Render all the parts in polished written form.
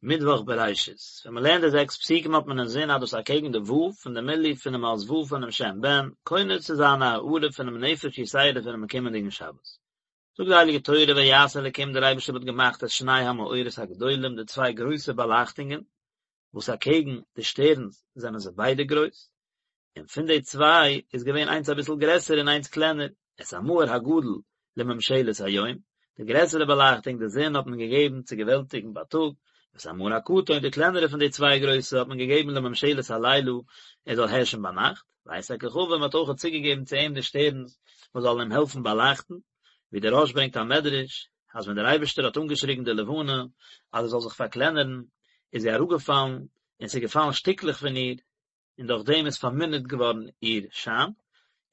מיטוואך בראשית, ווען מען לערנט די זעקס פסוקים האט מען אינזין אז דאס אקעגן די ו' פון די מילוי פונעם אות ו' פונעם שם בן, קונה צו זיין א הארה פונעם נפש יתירה פונעם קומענדיגן שבת. זאגט די הייליגע תורה ויעש אלקים דער אייבערשטער האט געמאכט את שני המאורות הגדולים די צוויי גרויסע באלייכטונגען, וואס אקעגן די שטערנס זענען זיי ביידע גרויס, און פון די צוויי איז געווען איינס אביסל גרעסער און איינס קלענער, את המאור הגדול לממשלת היום, די גרעסערע באלייכטונג די זון האט מען געגעבן צו געוועלטיגן בייטאג, ואת המאור הקטן די קלענערע פון די צוויי גרויסע האט מען געגעבן לממשלת הלילה ער זאל הערשן ביינאכט, ואת הכוכבים מען האט אויך צוגעגעבן צו אים די שטערנס וואס זאלן אים העלפן באלייכטן, ווי דער רא"ש ברענגט א מדרש אז ווען דער אייבערשטער האט אנגעשריגן די לבנה אז זי זאל זיך פארקלענערן איז זי אראפגעפאלן און ס'איז געפאלן שטיקלעך פון איר, און דורך דעם איז פארמינערט געווארן איר שיין,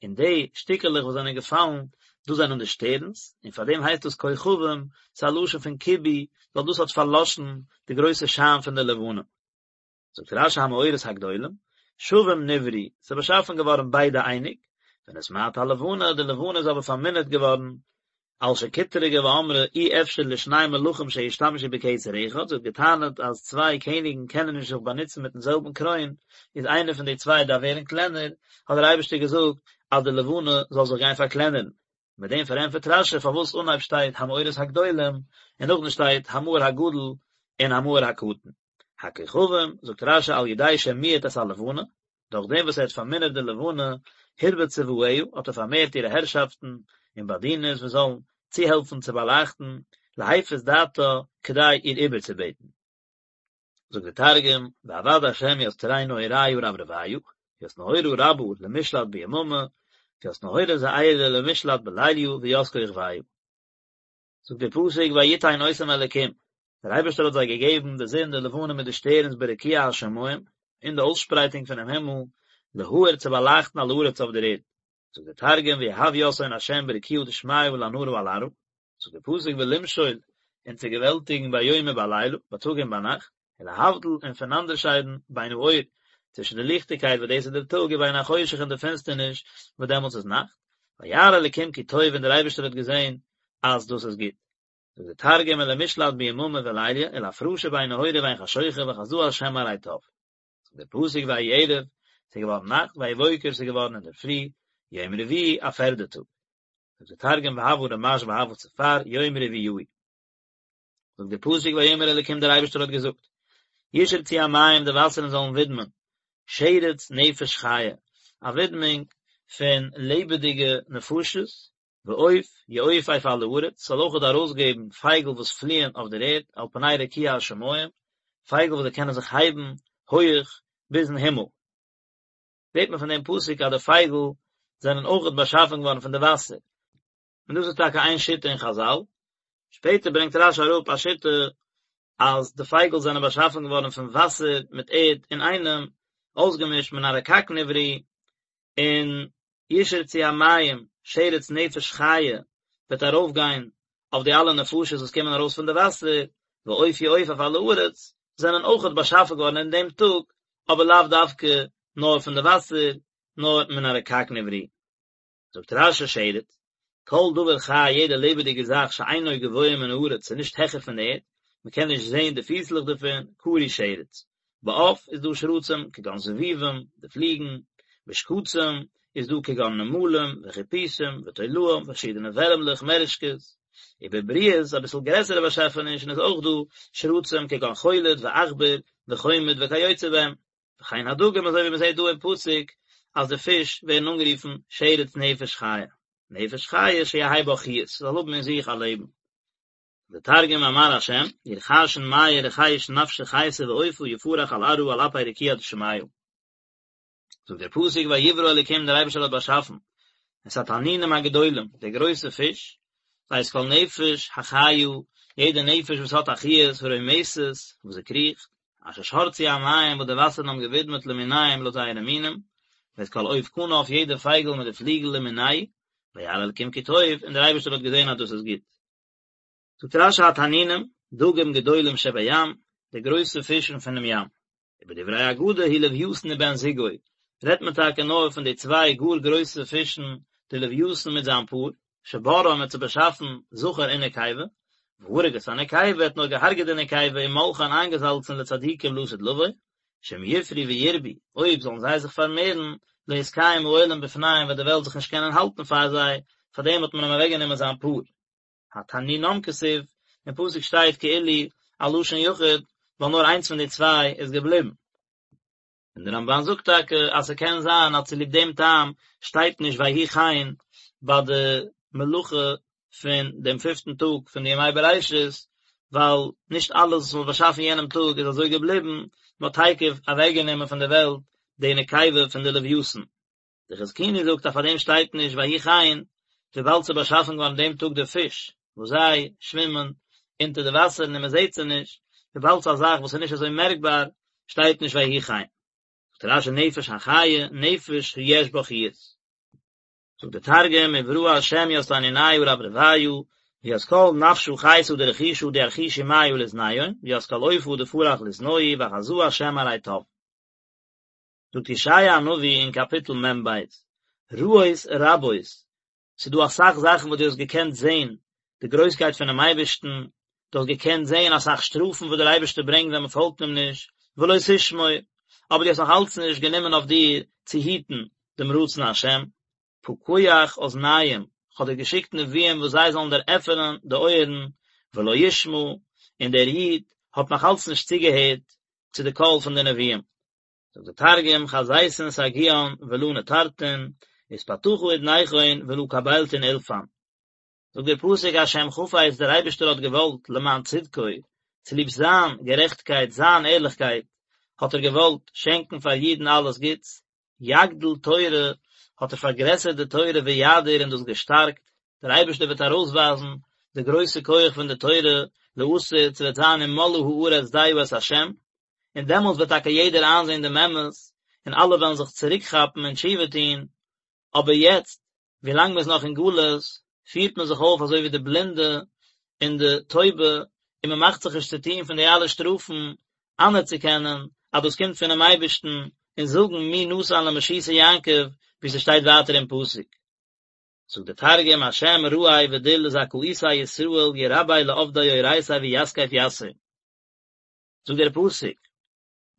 און די שטיקעלעך וואס זענען געפאלן, דאס זענען די שטערנס, און פאר דעם הייסט דאס כוכבים, ס'איז א לשון פון כיבוי, ווייל דאס האט פארלאשן די גרויסע שיין פון די לבנה. זאגט רש"י המאורות הגדולים, שווים נבראו, ס'איז באשאפן געווארן ביידע אייניג, ונתמעטה הלבנה, די לבנה איז אבער פארמינערט געווארן, על שקטרגה ואמרה אי אפשר לשני מלכים שישתמשו בכתר אחד, זי האט געטענה'ט אז צוויי קעניגן קענען נישט זיך באנוצן מיטן זעלבן קרוין, איז איינער פון די צוויי דארף ווערן קלענער, האט דער אייבערשטער געזאגט אז די לבנה זאל זיך גיין פארקלענערן. מיט דעם פארענטפערט רש"י פארוואס אנהייב שטייט המאורות הגדולים און נאכדעם שטייט המאור הגדול און המאור הקטן. הכוכבים, זאגט רש"י על ידי שמיעט את הלבנה, דורך דעם וואס ער האט פארמינערט די לבנה, הרבה צבאיה, האט ער פארמערט אירע הערשאפטן און באדינערס וואס זאלן צוהעלפן צו באלייכטן, להפיס דעתה, כדי איר איבערצובעטן. זאגט דער תרגום, ועבד ה' ית תרין נהוריא רברביא, ית נהורא רבא למשלט ביממא, וית נהורא זעירא למשלט בליליא, וית כוכביא. זאגט דער פסוק ויתן אותם אלקים, דער אייבערשטער האט זיי געגעבן די זון די לבנה מיט די שטערנס ברקיע השמים, אין די אויסשפרייטונג פונעם הימל, להאיר צו באלייכטן על הארץ אויף דער ערד. זאגט דער תרגום ויהב יתהון ה' ברקיעא דשמיא לאנהרא על ארעא, זאגט דער פסוק ולמשול, און צו געוועלטיגן ביום ובלילה, בייטאג און ביינאכט, ולהבדיל און פונאנדערשיידן בין האור, צווישן די ליכטיגקייט וואס דאס איז דער טאג ובין החושך און די פינסטערניש וואס דעמאלטס איז נאכט, וירא אלקים כי טוב און דער אייבערשטער האט געזען אז דאס איז גוט. זאגט דער תרגום ולמשלט ביממא וליליא ולאפרשא בין נהורא ובין חשוכא וחזא השם ארי טב. זאגט דער פסוק ויהי ערב, ס'איז געווארן נאכט, ויהי בוקר, ס'איז געווארן אינדערפרי, יום רביעי, א פערדע טאג. זאגט דער תרגום והוה רמש והוה צפר, יום רביעאה. זאגט דער פסוק ויאמר אלקים דער אייבערשטער האט געזאגט, ישרצו המים די וואסערן זאלן ווידמען, שרץ נפש חיה, א ווידמונג פון לעבעדיגע נפשות, ועוף יעופף על הארץ, ס'זאל אויכעט ארויסגעבן פייגל וואס פליען אויף דער ערד, על פני רקיע השמים, פייגל וואס זיי קענען זיך הייבן הויעך ביזן הימל. זעט מען פון דעם פסוק אז די פייגל זענען אויכעט באשאפן געווארן פון די וואסער. און דאס איז טאקע איין שיטה אין חזל, שפעטער ברענגט רש"י אראפ א שיטה אז די פייגל זענען באשאפן געווארן פון וואסער מיט ערד אינאיינעם, אויסגעמישט מן הרקק נבראו, און ישרצו המים שרץ נפש חיה וועט ארויפגיין אויף די אלע נפשות וואס קומען ארויס פון די וואסער, ועוף יעופף על הארץ, זענען אויכעט באשאפן געווארן אין דעם טאג, אבער לאו דווקא נאר פון די וואסער, נאר מן הרקק נבראו. זאגט רש"י שרץ, כל דבר חי יעדע לעבעדיגע זאך שאינו גבוה מן הארץ ס'איז נישט העכער פון די ערד, מ'קען נישט זעהן די פיסלעך דערפון, קרוי שרץ. בעוף איז דא שרצים כגון זבובים, די פליגן, בשקצים איז דא כגון נמלים וחיפושים ותולעים, פארשידענע ווערעמלעך, מערעשקעס. ובבריות, אביסל גרעסערע באשעפענישן איז אויך דא שרצים כגון חולד ועכבר וחומד וכיוצא בהם. וכן הדגים אזוי ווי מען זעט דא אין פסוק אז די פיש ווערן אנגערופן שרץ נפש חיה, נפש חיה שיהא בה חיות, ס'זאל האבן אין זיך א לעבן. די תרגום אמר השם, ירחשון מיא רחיש נפשא חייתא ועופא יפרח על ארעא על אפי רקיעא דשמיא. זאגט דער פסוק ויברא אלקים דער אייבערשטער האט באשאפן את התנינים הגדולים די גרויסע פיש ואת כל נפש החיה יעדע נפש וואס האט א חיות הרומשת וואס זי קריכט אשר שרצו המים וואס די וואסערן האבן געווידמעט למיניהם לויט זייערע מינים ואת כל עוף כנף יעדע פייגל מיט די פליגל למינהו וירא אלקים כי טוב און דער אייבערשטער האט געזען אז דאס איז גוט. זאגט רש"י התנינים, דגים גדולים שבים, די גרויסע פישן פונעם ים. ובדברי אגדה הוא לוויתן ובן זוגו, רעדט מען טאקע נאר פון די צוויי גאר גרויסע פישן, די לוויתן מיט זיין פאר, שבראם האט זיי באשאפן זכר און נקבה, והרג את הנקבה, האט נאר געהארגעט די נקבה ומלחה און איינגעזאלצן לצדיקים לעתיד לבוא, שאם יפרו וירבו, אויב זאלן זיי זיך פארמערן, לא יתקיים העולם בפניהם וועט די וועלט זיך נישט קענען האלטן פאר זיי, פארדעם האט מען אים אוועקגענומען זיין פאר. התנינם כתיב, אין פסוק שטייט כאילו א לשון יחיד, ווייל נאר איינס פון די צוויי איז געבליבן. און דער רמבן זאגט טאקע אז ס'קען זיין אז צוליב דעם טעם שטייט נישט ויהי כן ביי די מלאכה פון דעם פיפטן טאג פון די ימי בראשית, ווייל נישט אלעס וואס מ'האט באשאפן יענעם טאג איז אזוי געבליבן, מ'האט תיכף אוועקגענומען פון די וועלט די נקבה פון די לוויתן. דער חזקוני זאגט אז פאר דעם שטייט נישט ויהי כן, וויבאלד ס'איז באשאפן געווארן דעם טאג די פיש וואס זיי שווימען אונטער די וואסערן און מען זעט זיי נישט, וויבאלד ס'איז א זאך וואס איז נישט אזוי מערקבאר, שטייט נישט ויהי כן. זאגט רשי נפש החיה, נפש שיש בה חיות. זאגט דער תרגום, וברא ה' ית תניניא רברביא, וית כל נפשא חיתא דרחישא דירחישו מיא לזניון, וית כל עופא דפרח לזנוהי, וחזא ה' ארי טב. זאגט ישעיה הנביא אין קאפיטל מ ב, ראות רבות, ס'איז דא אסאך זאכן וואס דו האסט געקענט זען די גרויסקייט פונעם אייבערשטן, דו האסט געקענט זען אסאך שטראפן וואס דער אייבערשטער ברענגט ווען מען פאלגט אים נישט, ולא תשמור, אבער דו האסט נאך אלץ נישט גענומען אויף דיר צו היטן דעם רצון השם. פקח אזניים, כ'האב דיר געשיקט נביאים וואס זיי זאלן דיר עפענען די אויערן, ולא ישמע, און דער איד האט נאך אלץ נישט צוגעהערט צו די קול פון די נביאים. זאגט דער תרגום, חזיתון סגיאן ולא נטרתון, אתפתחא אודניכון ולא קבילתון אולפן. זאגט דער פסוק השם חפץ דער אייבערשטער האט געוואלט למען צדקו, צוליב זיין גערעכטקייט, זיין ערליכקייט, האט ער געוואלט שענקן פאר אידן אלעס גוטס, יגדיל תורה, האט ער פארגרעסערט די תורה ויאדיר און דאס געשטארקט, דער אייבערשטער וועט ארויסווייזן די גרויסע כח פון די תורה, לעתיד, ס'וועט זיין ומלאה הארץ דעה את השם, און דעמאלטס וועט טאקע יעדער איינזען דעם אמת, און אלע וועלן זיך צוריקכאפן און תשובה טון, אבער יעצט, ווילאנג מען איז נאך אין גלות, פירט מען זיך אויף אזוי ווי די בלינדע און די טויבע, און מען מאכט זיך נישט צו טון פון די אלע שטראפן, אנערצוקענען אז דאס קומט פונעם אייבערשטן, און זאגן מי נתן למשיסה יעקב, ווי ס'שטייט ווייטער אין פסוק. זאגט דער תרגום, השם רעי ודיל לזכאותיה ישראל ירבי לעבדי אורייתיה ויתקיף יתהון. זאגט דער פסוק,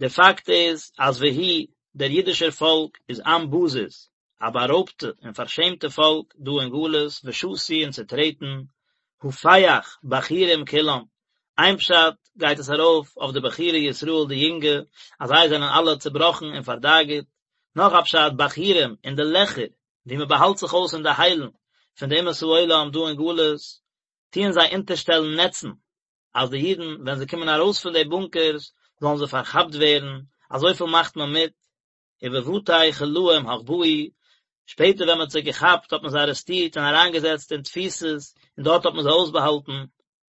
דער פאקט איז אז והוא, דער אידישער פאלק איז עם בזוז, א בארויבטע און פארשעמטע פאלק דא אין גלות, ושסוי און צוטרעטן, הפח בחורים כולם, איין פשט גייט עס ארויף אויף די בחורי ישראל די יונגע, אז זיי זענען אלע צובראכן און פארדאגה'ט, נאך א פשט בחורים אין די לעכער וואו מען באהאלט זיך אויס אין די היילן פון די אומות העולם דא אין גלות, טוען זיי אונטערשטעלן נעצן אז די אידן ווען זיי קומען ארויס פון די בונקערס זאלן זיי פארכאפט ווערן, אזויפיל מאכט מען מיט, ובבתי כלאים החבאו, שפעטער ווען מען האט זיי געכאפט האט מען זיי ארעסטירט און אריינגעזעצט אין תפיסות און דארט האט מען זיי אויסבאהאלטן,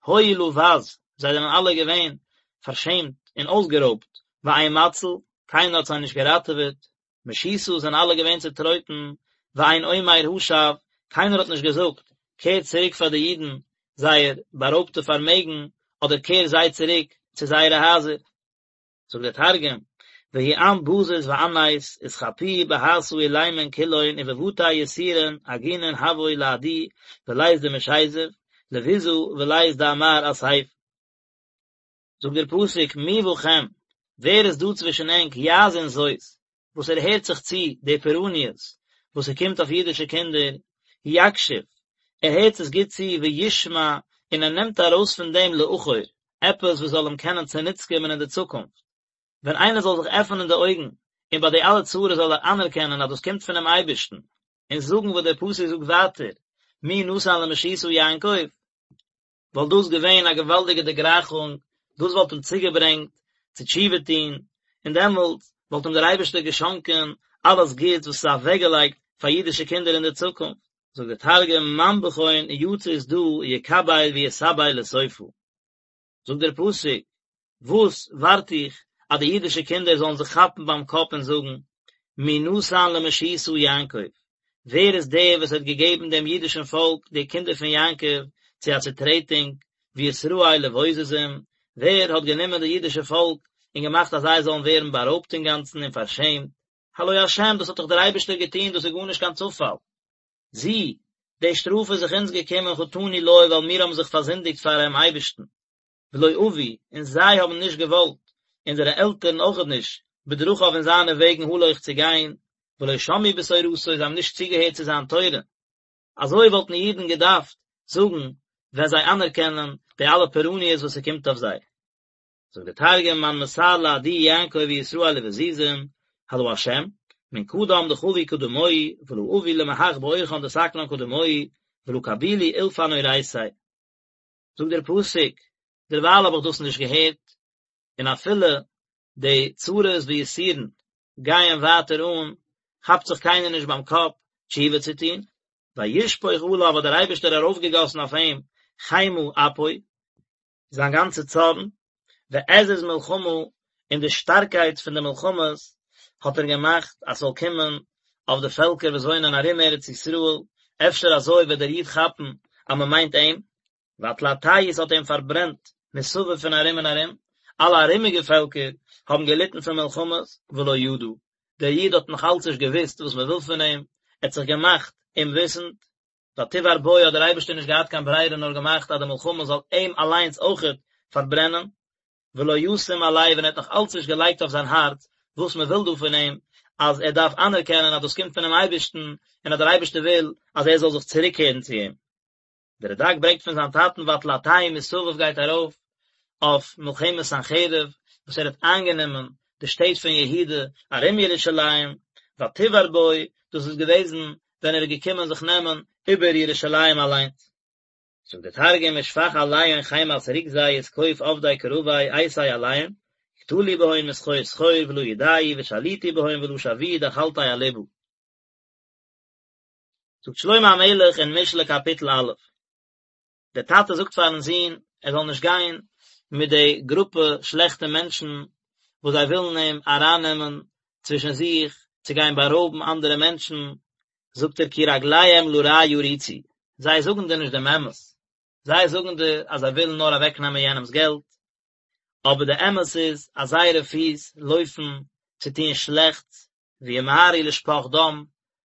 היו לבז, זיי זענען אלע געווען פארשעמט און אויסגערויבט, ואין מציל, קיינער האט זיי נישט געראטעוועט, משוסה זענען אלע געווען צוטרויטן, ואין אומר השב, קיינער האט נישט געזאגט, קער צוריק פאר די אידן זייער בארויבטע פארמעגן, אדער קער זיי צוריק צו זייערע הייזער. זאגט דער תרגום, והוא עם בזוז ואניס, אתחפוהו בהתא עולימין כולהון ובבתי יסורין עגינין הוו להדי ולית דמשזב, לביזא ולית דאמר אסיף. זאגט דער פסוק מי בכם, ווער איז דא צווישן ענק יאזין זאת, וואס ער הערט זיך צו די פורעניות וואס ס'קומט אויף אידישע קינדער, יקשיב, ער הערט עס גוט צו, וישמע, און ער נעמט ארויס פון דעם לאחור, עפעס וואס זאל אים קענען צוניץ קומען אין די צוקונפט. ווען איינער זאל זיך עפענען די אויגן, און ביי די אלע צרות זאל ער אנערקענען אז דאס קומט פונעם אייבערשטן, און זאגן וואס דער פסוק זאגט ווייטער, מי נתן למשיסה יעקב, וואלט דאס געווען א געוואלדיגע דערגרייכונג, דאס וואלט אים צוגעברענגט צו תשובה טון, און דעמאלט וואלט אים דער אייבערשטער געשאנקען אלעס גוטס וואס איז אוועקגעלייגט פאר אידישע קינדער אין די צוקונפט, זאגט דער תרגום מן בכון יציץ דא יקבל ויסבל לסופא. זאגט דער פסוק, וואס ווארט איך אז די אידישע קינדער זאלן זיך כאפן ביים קאפ און זאגן, מי נתן למשיסה יעקב, ווער איז דער וואס האט געגעבן דעם אידישן פאלק, די קינדער פון יעקב, צו א צוטרעטונג, וישראל לבוזזים, ווער האט גענומען די אידישע פאלק און געמאכט אז זיי זאלן ווערן בארויבט אינגאנצן און פארשעמט? הלא השם, דאס האט דאך דער אייבערשטער געטון, דאס איז גארנישט קיין צופאל. זו. די שטראף איז זיך אונז געקומען חטאנו לו ווייל מיר האבן זיך פארזינדיגט פאר'ן אייבערשטן, ולא אבו, און זיי האבן נישט געוואלט, אונזערע עלטערן אויכעט נישט, בדרכיו אין זיינע וועגן הלוך צו גיין, ולא שמעו בתורתו, זיי האבן נישט צוגעהערט צו זיין תורה. אזוי וואלטן אידן געדארפט זאגן ווען זיי אנערקענען די אלע פורעניות וואס ס'קומט אויף זיי. זאגט דער תרגום מן מסר לעדי יעקב וישראל לבזיזין, הלא השם, מן קדם דחוו קדמוהי, ולא אבו למהך באורחן דתקנן קדמוהי, ולא קבילו אולפן אורייתיה. זאגט דער פסוק, דערווייל האב איך דאס נישט געהערט, און אפילו די צרות ויסורין גייען ווייטער אן, כאפט זיך קיינער נישט ביים קאפ תשובה צו טון, וישפוך עליו האט דער אייבערשטער ארויפגעגאסן אויף אים חמה אפו, זיין גאנצע צארן, ועזוז מלחמה, און די שטארקייט פון די מלחמות האט ער געמאכט אז ס'זאל קומען אויף די פעלקער וואס וואוינען ארום ארץ ישראל, אפשר אזוי וועט דער איד כאפן אז מען מיינט אים, ותלעטהו ס'האט אים פארברענט מסביב פון ארום און ארום, אלע ארומיגע פעלקער האבן געליטן פון מלחמות, ולא ידע, דער איד האט נאך אלץ נישט געוואוסט וואס מען וויל פון אים, ער האט זיך געמאכט אומוויסנד, ותבער בו האט דער אייבערשטער נישט געהאט קיין ברירה נאר געמאכט אז די מלחמה זאל אים אליינס אויכעט פארברענען, ולא ישים על לב און ער האט נאך אלץ נישט געלייגט אויף זיין הארץ וואס מען וויל דא פון אים, אז ער דארף אנערקענען אז דאס קומט פונעם אייבערשטן און אז דער אייבערשטער וויל אז ער זאל זיך צוריקקערן צו אים. דער רד"ק ברענגט פון זיין טאטן ותלעטהו מסביב גייט ארויף אויף מלחמת סנחריב וואס ער האט איינגענומען די שטעט פון יהודה ארום ירושלים, ותבער בו, דאס איז געוועזן ווען ער איז געקומען זיך נעמען איבער ירושלים אליינס. זאגט דער תרגום ושפך עליהון חימת רוגזיה ותקוף עבדי קרביה איתיה עליהון, וקטלו בהון מסחור סחור ולא ידעו ושליטו בהון ולא שויאו דחלתיה על לבא. זאגט שלמה המלך אין משלי קאפיטל א', דער טאטע זאגט פארן זון ער זאל נישט גיין מיט די גרופע שלעכטע מענטשן וואס זיי ווילן אים ארייננעמען צווישן זיך צו גיין בארויבן אנדערע מענטשן, זאגט ער כי רגליהם לרע ירוצו, זיי זאגן דיר נישט דעם אמת, זיי זאגן דיר אז זיי ווילן נאר אוועקנעמען יענעמ'ס געלט, אבער די אמת איז אז זייערע פיס לויפן צו טון שלעכטס, וימהרו לשפוך דם,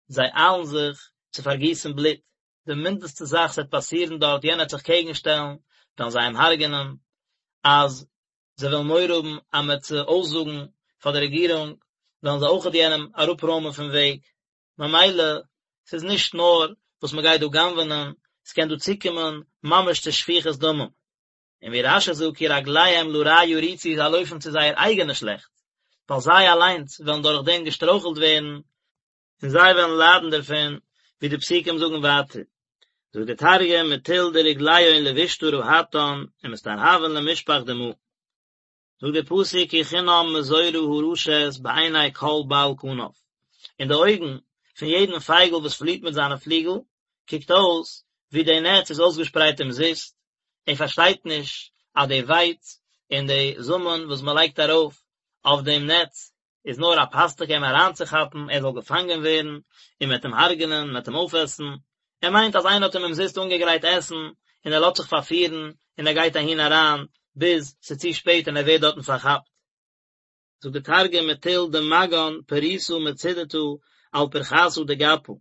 זיי איילן זיך צו פארגיסן בלוט, די מינדעסטע זאך ס'וועט פאסירן דארט, יענער וועט זיך קעגן שטעלן, וועלן זיי אים הרג'ענען, אז זיי וועלן מורא האבן אז מ'וועט זיי אויסזאגן פאר די רעגירונג, וועלן זיי אויכעט יענעם אראפרוימען פון וועג, ממילא, ס'איז נישט נאר וואס מ'גייט דא גנב'ענען, ס'קען דא צוקומען ממש צו שפיכות דמים. און ווי רש"י זאגט כי רגליהם לרע ירוצו זיי לויפן צו זייער אייגענע שלעכטס, ווייל זיי אליינס וועלן דורך דעם געשטרויכלט ווערן, און זיי וועלן ליידן דערפון, ווי די פסוקים זאגן ווייטער, זאגט דער תרגום מטול דרגליהון לבישתא רהטן ומסתרהבין למשפך דמא. זאגט דער פסוק כי חינם מזורה הרשת בעיני כל בעל כנף, אין די אויגן פון יעדן פייגל וואס פליט מיט זיינע פליגל, קוקט אויס ווי די נעץ איז אויסגעשפרייט אומזיסט, ער פארשטייט נישט אז די ווייץ און די זאמען וואס מען לייגט ארויף אויף דעם נעץ איז נאר א פאסטקע אים אריינצוכאפן ער זאל געפאנגען ווערן און מ'וועט אים הרג'נען, מ'וועט אים אויפעסן, ער מיינט אז איינער האט אים אומזיסט אנגעגרייט עסן און ער לאזט זיך פארפירן און ער גייט אהין אריין ביז ס'איז צו שפעט און ער ווערט דארטן פארכאפט. זאגט דער תרגום מטול דמגן פריסא מצדתא על פרחתא דגפא,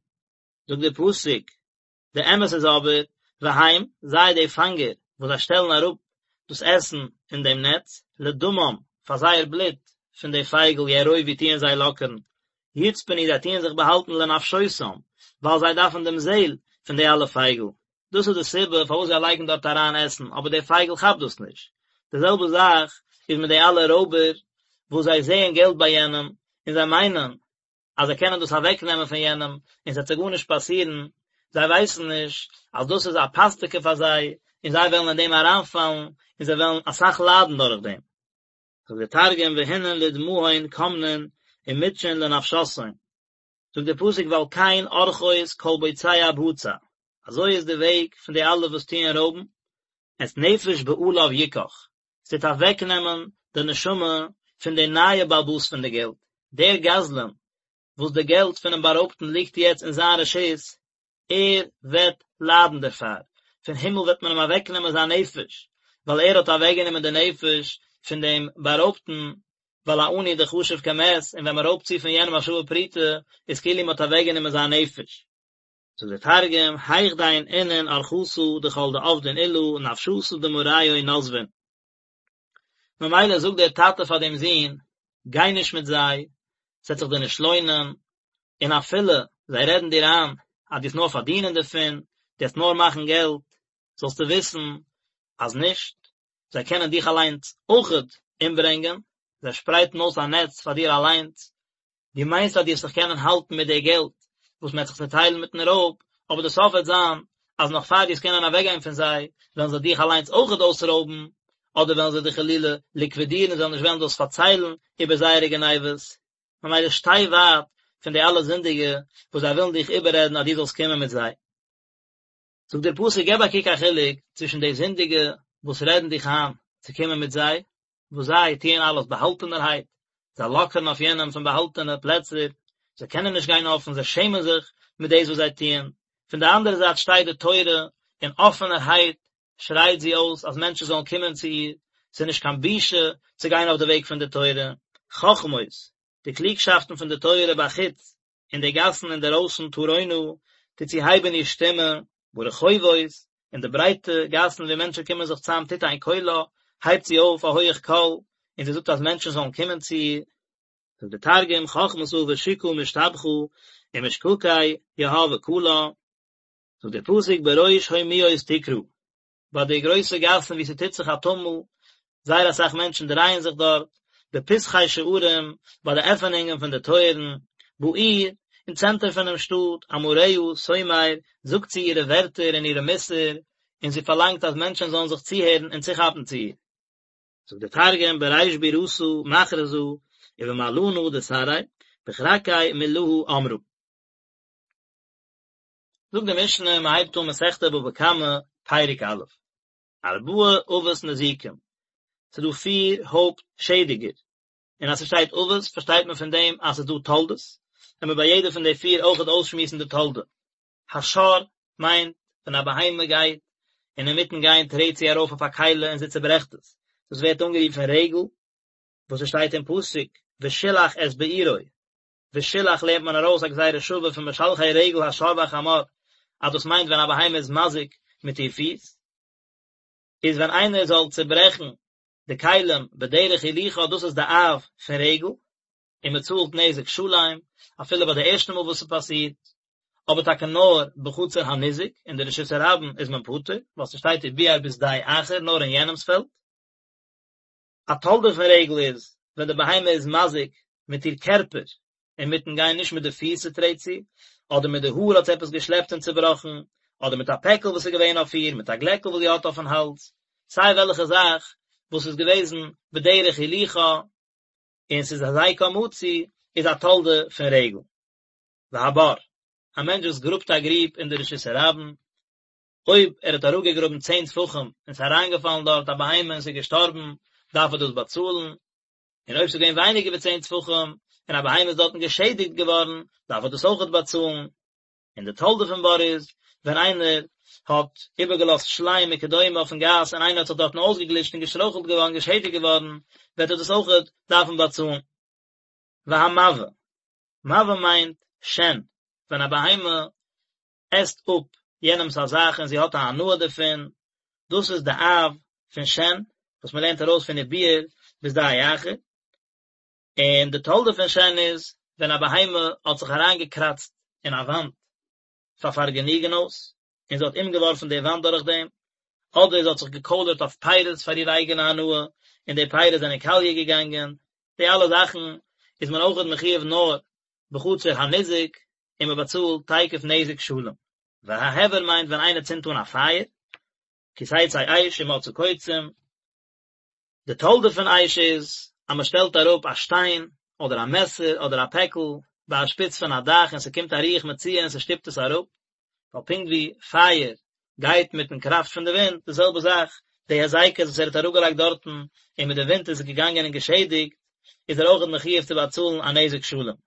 זאגט דער פסוק, די אמת איז אבער, והם, זיי די פאנגער, וואס זיי שטעלן אראפ דאס עסן אין דעם נעץ, לדמם, פאר זייער בלוט, פון די פייגל יארבו טוען זיי לאקערן, יצפנו זיי טוען זיך באהאלטן לנפשותם, ווייל זיי דארפן דעם זעל פון די אלע פייגל. דאס איז די סיבה פארוואס זיי לייגן דארט אריין עסן, אבער דער פייגל כאפט דאס נישט. די זעלבע זאך איז מיט די אלע רויבער, וואס זיי זעען געלט ביי יענעם, און זיי מיינען אז זיי קענען דאס אוועקנעמען פון יענעם און ס'וועט זיי גארנישט פאסירן, זיי ווייסן נישט אז דאס איז א פאסטקע פאר זיי און זיי וועלן אין דעם אריינפאלן און זיי וועלן אסאך ליידן דורך דעם. זאגט דער תרגום והינון לדמהון כמנין ומטשין לנפשתהון, זאגט דער פסוק ועל כן ארחות כל בוצע בצע, אזוי איז די וועג פון די אלע וואס טוען רויבן, את נפש בעליו יקח, ס'טוט אוועקנעמען די נשמה פון די נייע בעל הבית פון די געלט, דער גזלן וואס די געלט פונעם בארויבטן ליגט יעצט אין זיין רשות, ער וועט ליידן דערפאר, פון הימל וועט מען אים אוועקנעמען זיין נפש, ווייל ער האט אוועקגענומען די נפש פון דעם בארויבטן, ווייל א עני איז דאך חשוב כמת, און ווען מען רויבט צו פון יענעם א שווה פרוטה, איז כאילו מען האט אוועקגענומען זיין נפש. זאגט דער תרגום, היכדין אינון ארחתא דכל דעבדין עלא נפשתא דמריהון נסבין. ממילא זאגט דער טאטע פאר דעם זון, גיי נישט מיט זיי, ס'וועט זיך דיר נישט לוינען, און אפילו זיי רעדן דיר איין אז דו וועסט נאר פארדינען דערפון, דו וועסט נאר מאכן געלט, זאלסטו וויסן אז נישט, זיי קענען דיך אליינס אויכעט אומברענגען, זיי שפרייטן אויס א נעץ פאר דיר אליינס, דו מיינסט אז דו וועסט זיך קענען האלטן מיט די געלט וואס מען וועט זיך צעטיילן מיטן רויב, אבער די סוף וועט זיין אז נאך פאר דו וועסט קענען אוועקגיין פון זיי, וועלן זיי דיך אליינס אויכעט אויסרויבן, אדער וועלן זיי דיך חלילה ליקווידירן, זיי וועלן נישט וועלן דאס פארציילן איבער זייערע גניבות. ממילא שטיי ווייט פון די אלע זינדיגע וואס זיי ווילן דיך איבעררעדן אז דו זאלסט קומען מיט זיי. זאגט דער פסוק געב א קוק א חילוק צווישן די זינדיגע וואס רעדן דיך איין צו קומען מיט זיי, וואס זיי טוען אלעס באהאלטענערהייט, זיי לאקערן אויף יענעם פון באהאלטענע פלעצער, זיי קענען נישט גיין אפן, זיי שעמען זיך מיט דאס וואס זיי טוען, פון די אנדערע זייט שטייט די תורה און אפענערהייט שרייט זי אויס אז מענטשן זאלן קומען צו איר, ס'איז נישט קיין בושה צו גיין אויף די וועג פון די תורה, חכמות, די קלוגשאפטן פון די תורה בחוץ, אין די גאסן אינדערויסן תרונה, טוט זי הייבן איר שטימע, ברחובות, אין די ברייטע גאסן וואו מענטשן קומען זיך צאם תתן קולה, הייבט זי אויף א הויעך קול, און זי זאגט אז מענטשן זאלן קומען צו איר. זאגט דער תרגום, חכמתא בשוקא משתבחא, ומשקקי יהבא קלה. זאגט דער פסוק בראש הומיות תקרא, ביי די גרויסע גאסן וואו ס'טוט זיך א טומל, זייער אסאך מענטשן דרייען זיך דארט, בפתחי שערים, ביי די עפענונגען פון די טויערן, בעיר, אין צענטער פונעם שטאט, אמריה תאמר, זאגט זי אירע ווערטער און אירע מוסר, און זי פארלאנגט אז מענטשן זאלן זיך צוהערן און צוכאפן צו איר. זאגט דער תרגום, בריש בירתא מכרזא, ובמעלנא דתרעי, בכרכי מלהא אמרה. זאגט די משנה, מען הייבט אן מסכת בבא קמא, פרק א', ארבעה אבות נזיקין, ס'איז דא פיר הויפט שעדיגער, און אז ס'שטייט אבות פארשטייט מען פון דעם אז ס'איז דא תולדות, און מען ביי יעדע פון די פיר אויכעט אויסשמועסן די תולדה. השור מיינט ווען א בהמה גייט און אינמיטן גיין טרעט זי ארויף אויף א כלי און זי צוברעכט עס, דאס ווערט אנגערופן רגל, וואס עס שטייט אין פסוק ושילח את בעירו, ושילח לערנט מען ארויס א גזירה שווה פון משלחי רגל השור והחמור אז דאס מיינט ווען א בהמה איז מזיק מיט איר פיס, איז ווען איינער זאל צוברעכן די כלים בדרך הילוכה דאס איז די אב פון רגל, און מען צאלט נזק שלם אפילו ביי די ערשטע מאל וואס ס'פאסירט, אבער טאקע נאר בחצר הניזק, אין די רשות הרבים איז מען פטור, ווייל ס'שטייט ובער בשדה אחר נאר אין יענעמ'ס פעלד. א תולדה פון רגל איז ווען די בהמה איז מזיק מיט איר קערפער אינמיטן גיין נישט מיט די פיס ס'טרעט זי, אדער מיט די האר האט זי עפעס געשלעפט און צובראכן, אדער מיט א פעקל וואס איז געווען אויף איר, מיט א גלעקל וואס זי האט אויפן האלז, סיי וועלכע זאך וואס איז געוועזן בדרך הילוכה און ס'איז הזיקה מצוי איז א תולדה פון רגל. והבור, א מענטש וואס גראבט א גריב אין די רשות הרבים, אויב ער האט אראפגעגראבן צען טפחים און ס'איז אריינגעפאלן דארט א בהמה און ס'איז געשטארבן, דארף ער דאס באצאלן, און אויב ס'איז געווען ווייניגער ווי צען טפחים און א בהמה איז דארטן געשעדיגט געווארן, דארף ער דאס אויכעט באצאלן. און די תולדה פון בור איז, ווען איינער האט איבערגעלאזט שליים וכדומה אויפן גאס און איינער האט זיך דארטן אויסגעגליטשט און געשטרויכלט געווארן, געשעדיגט געווארן, וועט ער דאס אויכעט דארפן באצאלן. והמבעה, מבעה מיינט שן, ווען א בהמה עסט אפ יענעמס א זאך און זי האט א הנאה דערפון, דאס איז די אב פון שן, וואס מען לערנט ארויס פון ובער בשדה אחר, און די תולדה פון שן איז ווען א בהמה האט זיך אריינגעקראצט אין א וואנט פאר פארגעניגן אויס, און זי האט אומגעווארפן די וואנט דורך דעם, אדער זי האט זיך געקוילערט אויף פירות פאר איר אייגענע הנאה, און די פירות זענען קאליע געגאנגען, די אלע זאכן איז מען אויכעט מחויב נאר בחצר הניזק, און מען באצאלט תיכף נזק שלם. וההבער מיינט ווען איינער צינדט אן א פייער, כי תצא אש ומצאה קוצים, די תולדה פון אש איז אז מען שטעלט אראפ א שטיין אדער א מעסער אדער א פעקל ביי א שפיץ פון א דאך און ס'קומט א רוח מצויה און ס'שטופט עס אראפ, ווייל פונקט ווי פייער גייט מיטן קראפט פון די ווינט, די זעלבע זאך די הזיקות וואס ער האט אראפגעלייגט דארטן און מיט די ווינט איז עס געגאנגען און געשעדיגט, איז ער אויכעט מחויב צו באצאלן א נזק שלם.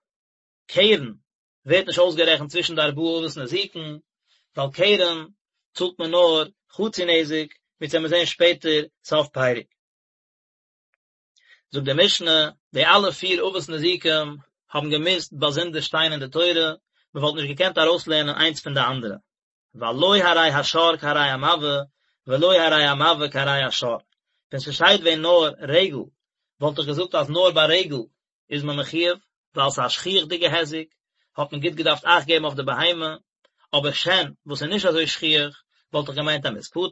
קרן ווערט נישט אויסגערעכנט צווישן די ארבעה אבות נזיקין, ווייל קרן צאלט מען נאר חצי נזק, ווי אונז וועלן זען שפעטער סוף פרק. זאגט די משנה, די אלע פיר אבות נזיקים האבן געמוזט באזונדער שטיין אין די תורה, מען וואלט נישט געקענט ארויסלערנען איינס פון די אנדערע, ווייל לא הרי השור כהרי המבעה, ולא הרי המבעה כהרי השור. ווען ס'שטייט ווען נאר רגל, וואלט איך געזאגט אז נאר ביי רגל איז מען מחויב, ווייל ס'איז א שכיח'דיגע היזק, האט מען גוט געדארפט אכט געבן אויף די בהמה, אבער שן, וואס איז נישט אזוי שכיח, וואלט איך געמיינט אז מ'איז פטור,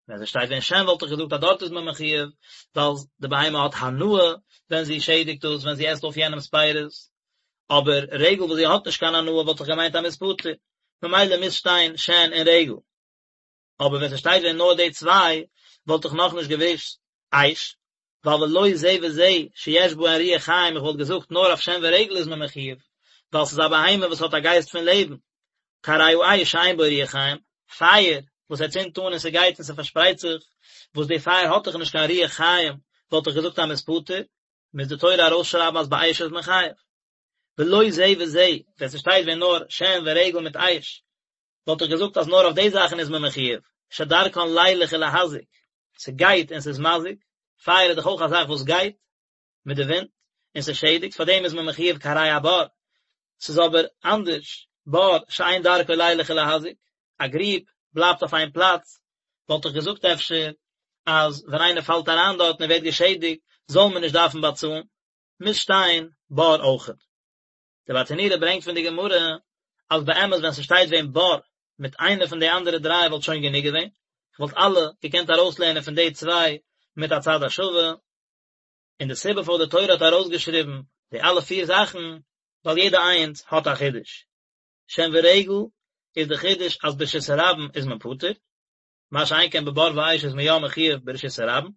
ווען ס'שטייט ווען שן וואלט איך געזאגט אז דארט איז מען מחויב, ווייל די בהמה האט הנאה ווען זי שעדיגט דאס, ווען זי עסט אויף יענעמ'ס פירות, אבער רגל וואס זי האט נישט קיין הנאה וואלט איך געמיינט אז מ'איז פטור, ממילא מוז שטיין שן און רגל. אבער ווען ס'שטייט ווען נאר די צוויי, וואלט איך נאכנישט געוואוסט אש, ווייל ולא זה וזה שיש בהן רוח חיים, איך וואלט געזאגט נאר אויף שן ורגל איז מען מחויב, ווייל ס'איז א בהמה וואס האט א גייסט פון לעבן, כהרי האש שאין בו רוח חיים, פייער וואס ער צינדט אן און ס'גייט און ס'פארשפרייט זיך, וואס די פייער האט דאך נישט קיין רוח חיים, וואלט איך געזאגט אז מ'איז פטור, מוז די תורה ארויסשרייבן אז ביי אש איז מען חייב. ולא זה וזה, ווען ס'שטייט ווען נאר שן ורגל מיט אש, וואלט איך געזאגט אז נאר אויף די זאכן איז מען מחויב, שדרכן לילך ולהזיק, ס'גייט און ס'איז מזיק, פייער איז דאך אויך א זאך וואס גייט מיט די ווינט, און ס'שעדיגט, פאר דעם איז מען מחויב כהרי הבור, ס'איז אבער אנדערש, בור שאין דרכו לילך ולהזיק, א גריב בלייבט אויף איין פלאץ, וואלט איך געזאגט אפשר אז ווען איינער פאלט אריין דארט און ווערט געשעדיגט זאל מען נישט דארפן באצאלן, מוז שטיין בור אויכעט. די ברטנורא ברענגט פון די גמרא אז באמת ווען ס'שטייט ווען בור מיט איינע פון די אנדערע דריי וואלט שוין גענוג געווען, כ'וואלט אלע געקענט ארויסלערנען פון די צוויי מיט א צד השווה, און די סיבה פארוואס די תורה האט ארויסגעשריבן די אלע פיר זאכן ווייל יעדע איינס האט א חידוש. שן ורגל איז די חידוש אז ברשות הרבים איז מען פטור, מה שאין כן בבור ואש איז מען יא מחויב ברשות הרבים.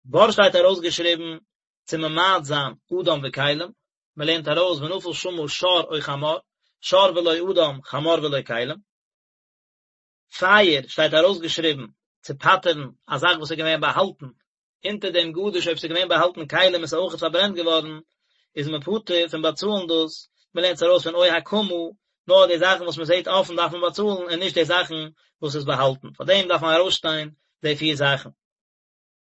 בור שטייט ארויסגעשריבן צו ממעט זיין אדם וכלים, מען לערנט ארויס ונפל שמה שור או חמור, שור ולא אדם, חמור ולא כלים. פייער שטייט ארויסגעשריבן צו פטר'ן א זאך וואס איז געווען באהאלטן אונטער דעם גדיש אויב ס'איז געווען באהאלטן כלים און ס'איז אויכעט פארברענט געווארן איז מען פטור פון באצאלן דאס, מען לערנט עס ארויס פון או הקמה, נאר די זאכן וואס מען זעט אפן דארף מען באצאלן און נישט די זאכן וואס איז באהאלטן, פארדעם דארף מען ארויסשטיין די פיר זאכן.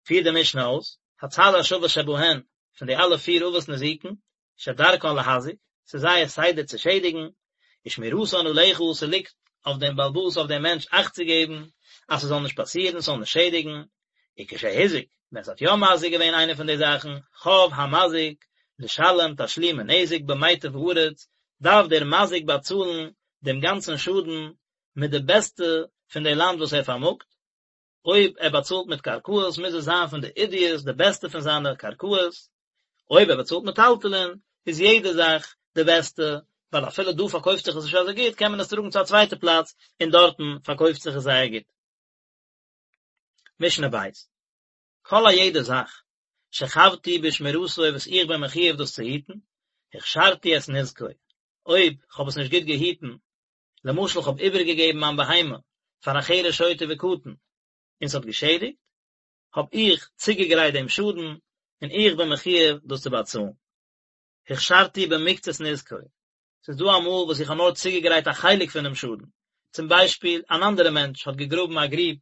פירט די משנה אויס, הצד השווה שבהן, פון די אלע פיר אבות נזיקין, שדרכן להזיק, ס'איז זייער סדר צו שעדיגן, ושמירתן עליך, ס'ליגט אויף דעם בעל הבית אויף דעם מענטש אכט צו געבן, אז ס'זאל נישט פאסירן, ס'זאל נישט שעדיגן, וכשהזיק, ווען ס'האט יא מזיק געווען איינע פון די זאכן, חב המזיק לשלם תשלומי נזק במיטב הארץ, דארף דער מזיק באצאלן דעם גאנצן שאדן מיט די בעסטע פון די לאנד וואס ער פארמאגט, אויב ער באצאלט מיט קרקעות מוז עס זיין פון די עידית די בעסטע פון זיינע קרקעות, אויב ער באצאלט מטלטלין איז יעדע זאך די בעסטע, ווייל אפילו דא פארקויפט זיך עס נישט אזוי גוט קען מען עס טראגן צו א צווייטע פלאץ און דארטן פארקויפט זיך עס זייער גוט. משנה בית. כל א יעדע זאך שחבתי בשמירתו וואס איך בין מחויב דאס צו היטן, הכשרתי את נזקו, אויב כ'האב עס נישט גוט געהיטן למשל כ'האב איבערגעגעבן מיין בהמה פאר א חרש שוטה וקטן און ס'האט געשעדיגט, האב איך צוגעגרייט דעם שאדן און איך בין מחויב דאס צו באצאלן. הכשרתי במקצת נזקו, ס'איז דא אמאל וואס איך האב נאר צוגעגרייט א חלק פונעם שאדן, צום ביישפיל אן אנדערע מענטש האט געגראבן א גריב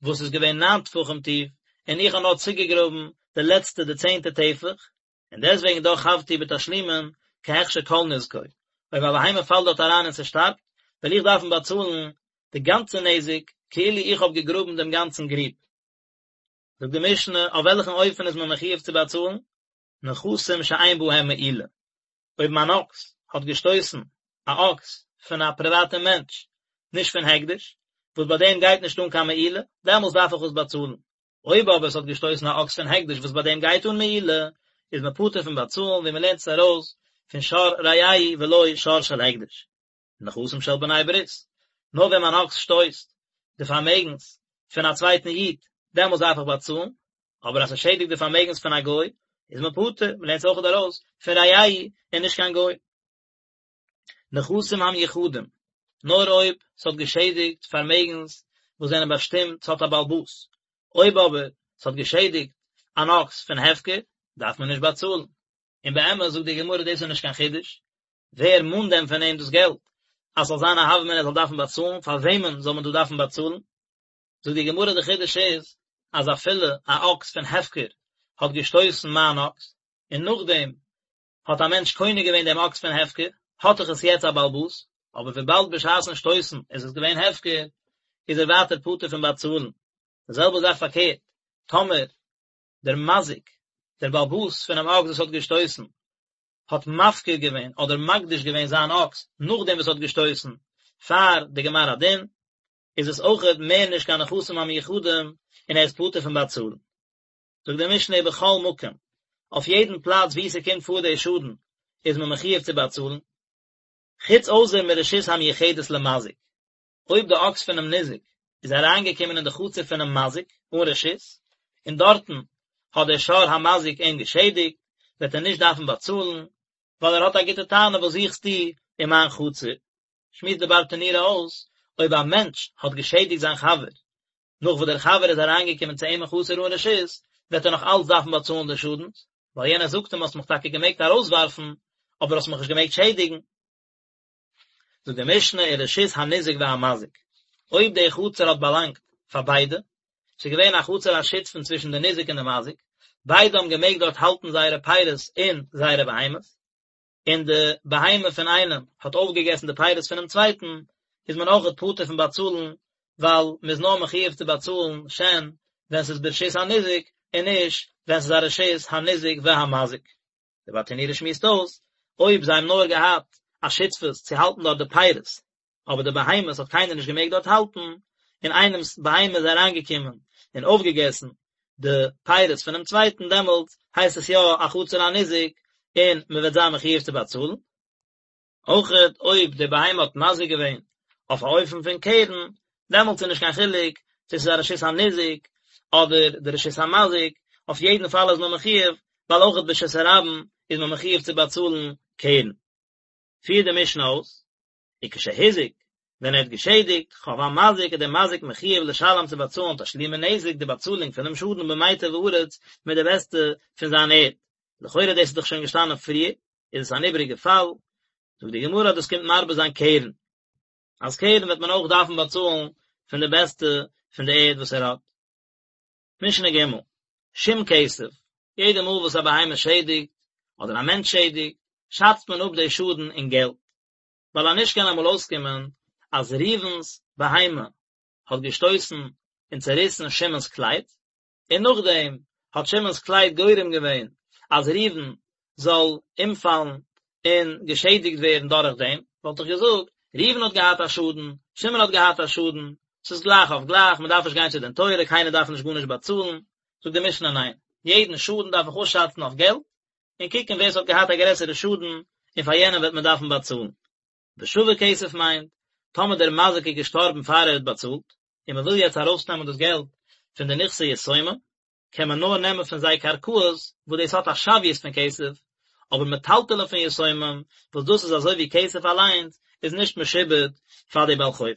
וואס איז געווען ניין טפחים טיף און איך האב נאר צוגעגראבן די לעצטע די צענטע טפח, און דעסטוועגן דאך חבתי בתשלומין כהכשר כל נזקו, אויב א בהמה פאלט דארט אריין און ס'שטארבט, וועל איך דארפן באצאלן די גאנצע נזק כאילו איך האב געגראבן דעם גאנצן גריב. זאגט די משנה, אויף וועלכן אופן איז מען מחויב צו באצאלן? נכסים שאין בהם מעילה, אויב מיין אקס האט געשטויסן א אקס פון א פריוואטע מענטש, נישט פון הקדש, וואס ביי דעם גייט נישט אן קיין מעילה, דעמאלס דארף איך עס באצאלן. אויב אבער עס האט געשטויסן א אקס פון הקדש וואס ביי דעם גייט אן מעילה, איז מען פטור פון באצאלן ווי מען לערנט עס ארויס פון שור רעהו ולא שור של הקדש. נכסים של בני ברית, נאר ווען מיין אקס שטויסט די פארמעגנס פון א צווייטן איד, דעמאלס דארף איך באצאלן, אבער אז עס שעדיגט די פארמעגנס פון א גוי, איז מען פטור, מען לערנט עס אויכעט ארויס פון רעהו און נישט קיין גוי. נכסים המיוחדים, נאר אויב ס'האט געשעדיגט פארמעגנס וואס זענען באשטימט, ס'האט א בעלבאס, אויב אבער ס'האט געשעדיגט אן אקס פון הפקר, דארף מען נישט באצאלן. און באמת זאגט די גמרא דאס איז נישט קיין חידוש, ווער מאנט דען פון אים דאס געלט אז ס'זאל זיין א הוה אמינא ער זאל דארפן באצאלן, פאר וועמען זאל מען דא דארפן באצאלן? זאגט די גמרא די חידוש איז אז אפילו א אקס פון הפקר האט געשטויסן מיין אקס, און נאכדעם האט א מענטש קונה געווען דעם אקס פון הפקר, האט דאך עס יעצט א בעלבאס, אבער וויבאלד בשעת'ן שטויסן איז עס געווען הפקר, איז ער ווייטער פטור פון באצאלן. די זעלבע זאך פארקערט, טאמער דער מזיק, דער בעלבאס פונעם אקס וואס האט געשטויסן, האט מפקיר געווען אדער מקדיש געווען זיין אקס נאכדעם וואס האט געשטויסן פאר די גמר הדין, איז עס אויכעט מער נישט קיין נכסים המיוחדים און ער איז פטור פון באצאלן. זאגט די משנה ובכל מקום, אויף יעדן פלאץ וואו ס'קומט פאר די שאדן איז מען מחויב צו באצאלן, חוץ אויסער מרשות המיוחדת למזיק, אויב די אקס פונעם ניזק איז אריינגעקומען אין די חצר פונעם מזיק אן רשות, און דארטן האט דער שור המזיק אים געשעדיגט, וועט ער נישט דארפן באצאלן, ווייל ער האט א גוטע טענה וואס זוכסטו אין מיין חצר. שמועסט די ברטנורא אויס, אויב א מענטש האט געשעדיגט זיין חבר, נאך וואס דער חבר איז אריינגעקומען צו אים אין חצר אן רשות, וועט ער נאך אלץ דארפן באצאלן די שאדנס, ווייל יענער זאגט אים האסט מיך טאקע געמעגט ארויסווארפן, אבער האסט מיך נישט געמעגט שעדיגן. זאגט די משנה ורשות הניזק והמזיק, אויב די חצר האט באלאנגט פאר ביידע, ס'איז געווען א חצר השותפין צווישן די ניזק און די מזיק, ביידע האבן געמעגט דארט האלטן זייערע פירות און זייערע בהמות, און די בהמה פון איינעם האט אויפגעגעסן די פירות פונעם צווייטן, איז מען אויכעט פטור פון באצאלן, ווייל מ'איז נאר מחויב צו באצאלן שן ווען ס'איז ברשות הניזק, און נישט ווען ס'איז א רשות הניזק והמזיק. דער ברטנורא שמועסט אויס, אויב זיי האבן נאר געהאט א שותפות צו האלטן דארט די פירות, אבער די בהמות האט קיינער נישט געמעגט דארט האלטן, און איינעמ'ס בהמה איז אריינגעקומען און אויפגעגעסן די פירות פונעם צווייטן, דעמאלט הייסט עס יא א חצר הניזק און מען וועט זיין מחויב צו באצאלן. אויכעט אויב די בהמה האט מזיק געווען אויף א אופן פון קרן, דעמאלטס איז נישט קיין חילוק צו ס'איז א רשות הניזק אדער די רשות המזיק, אויף יעדן פאל איז מען מחויב, ווייל אויכעט ברשות הרבים איז מען מחויב צו באצאלן קרן. פירט די משנה אויס, וכשהזיק, ווען ער האט געשעדיגט, חב המזיק איז דער מזיק מחויב לשלם צו באצאלן תשלומי נזק די באצאלונג פונעם שאדן במיטב הארץ מיט די בעסטע פון זיין ערד. לכאורה דאס איז דאך שוין געשטאנען פריער, איז עס אן איבעריגע פאל, זאגט די גמרא אז דאס קומט מרבה זיין קרן, אז קרן וועט מען אויך דארפן באצאלן פון די בעסטע פון די ערד וואס ער האט. משנה ג', שום כסף, יעדע מאל וואס א בהמה שעדיגט, אדער א מענטש שעדיגט, שאצט מען אפ די שאדן אין געלט, ווייל אנישט קען אמאל אויסקומען אז ראובן'ס בהמה האט געשטויסן און צעריסן שמעון'ס קלייד, און נאכדעם האט שמעון'ס קלייד גורם געווען אז ראובן זאל אומפאלן און געשעדיגט ווערן דורך דעם, וואלט איך געזאגט, ראובן האט געהאט א שאדן, שמעון האט געהאט א שאדן, ס'איז גלייך אויף גלייך, מ'דארף נישט גיין צו דין תורה, קיינער דארף נישט גארנישט באצאלן, זאגט די משנה ניין, יעדן שאדן דארף איך אויסשאצן אויף געלט, און קוקן ווער ס'האט געהאט א גרעסערע שאדן, און פאר יענעם וועט מען דארפן באצאלן. ושווה כסף מיינט, טאמער דער מזיק איז געשטארבן פאר ער האט באצאלט, און מען וויל יעצט ארויסנעמען דאס געלט פון די נכסי יתומים, קען מען נאר נעמען פון זיי קרקעות וואס דאס האט א שוויות פון כסף, אבער מטלטלין פון יתומים, וואס דאס איז אזוי ווי כסף אליינס, איז נישט משועבד פאר די בעל חוב.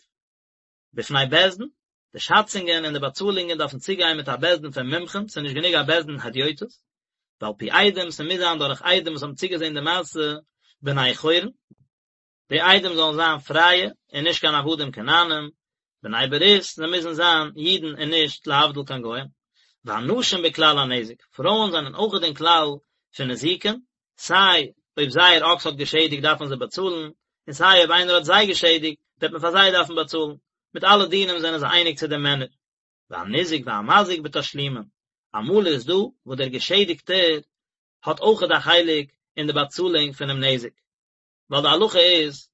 בפני בית דין, די שאצונגען און די באצאלונגען דארפן צוגיין מיט א בית דין פון מומחים, ס'איז נישט גענוג א בית דין הדיוטות, ועל פי עדים, ס'מוז זיין דורך עדים וואס האבן צוגעזען די מעשה בני חורין, די עדים זאלן זיין פרייע און נישט קיין עבדים כנענים, בני ברית, זיי מוזן זיין אידן און נישט להבדיל קיין גוים, והנשים בכלל הנזק, פרויען זענען אויכעט אין כלל פון נזיקין, סיי אויב זייער אקס האט געשעדיגט דארף מען זיי באצאלן, און סיי אויב איינער האט זיי געשעדיגט וועט מען פאר זיי דארפן באצאלן, מיט אלע דינים זענען זיי אייניג צו די מענער. והניזק והמזיק בתשלומין, אמאל איז דא וואס דער געשעדיגטער האט אויכעט א חלק אין די באצאלונג פונעם נזק, ווייל די הלכה איז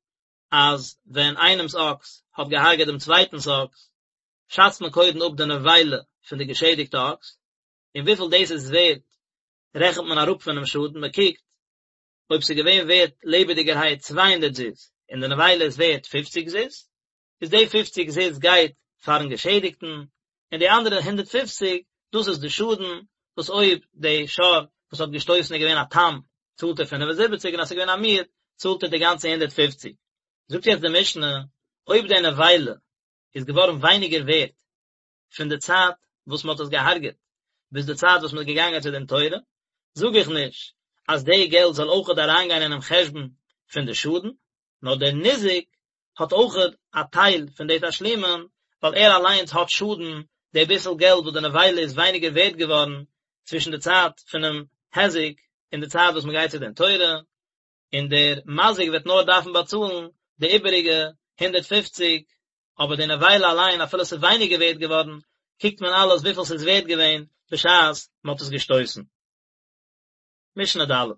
אז ווען איינעמס אקס האט געהארגעט דעם צווייטנס אקס, שאצט מען קודם אפ די נבילה פון די געשעדיגטע אקס, און וויפיל דאס איז ווערט רעכנט מען אראפ פונעם שאדן, מען קוקט אויב ס'איז געווען ווערט לעבעדיגערהייט צוויי הונדערט זוז און די נבילה איז ווערט פופציג זוז, איז די פופציג זוז גייט פארן געשעדיגטן, און די אנדערע הונדערט פופציג דאס איז די שאדן, וואס אויב די שור וואס האט געשטויסן איז געווען א תם צאלט ער 75 און אז ס'איז געווען א מועד צאלט ער די גאנצע 150. זאגט יעצט די משנה, אויב די נבילה איז געווארן ווייניגער ווערט פון די צייט וואס מען האט עס געהארגעט ביז די צייט וואס מען איז געגאנגען צו דין תורה, זאג איך נישט אז די געלט זאל אויכעט אריינגיין אינעם חשבון פון די שאדן, נאר דער ניזק האט אויכעט א טייל פון די תשלומין, ווייל ער אליינס האט שאדן די ביסל געלט וואס די נבילה איז ווייניגער ווערט געווארן צווישן די צייט פונעם היזק און די צייט וואס מען גייט צו דין תורה. און דער מזיק וועט נאר דארפן באצאלן די איבעריגע 150, אבער די נבילה אליין אפילו ס'איז ווייניגער ווערט געווארן, קוקט מען אלעס וויפיל ס'איז ווערט געווען בשעת מ'האט עס געשטויסן. משנה ד'.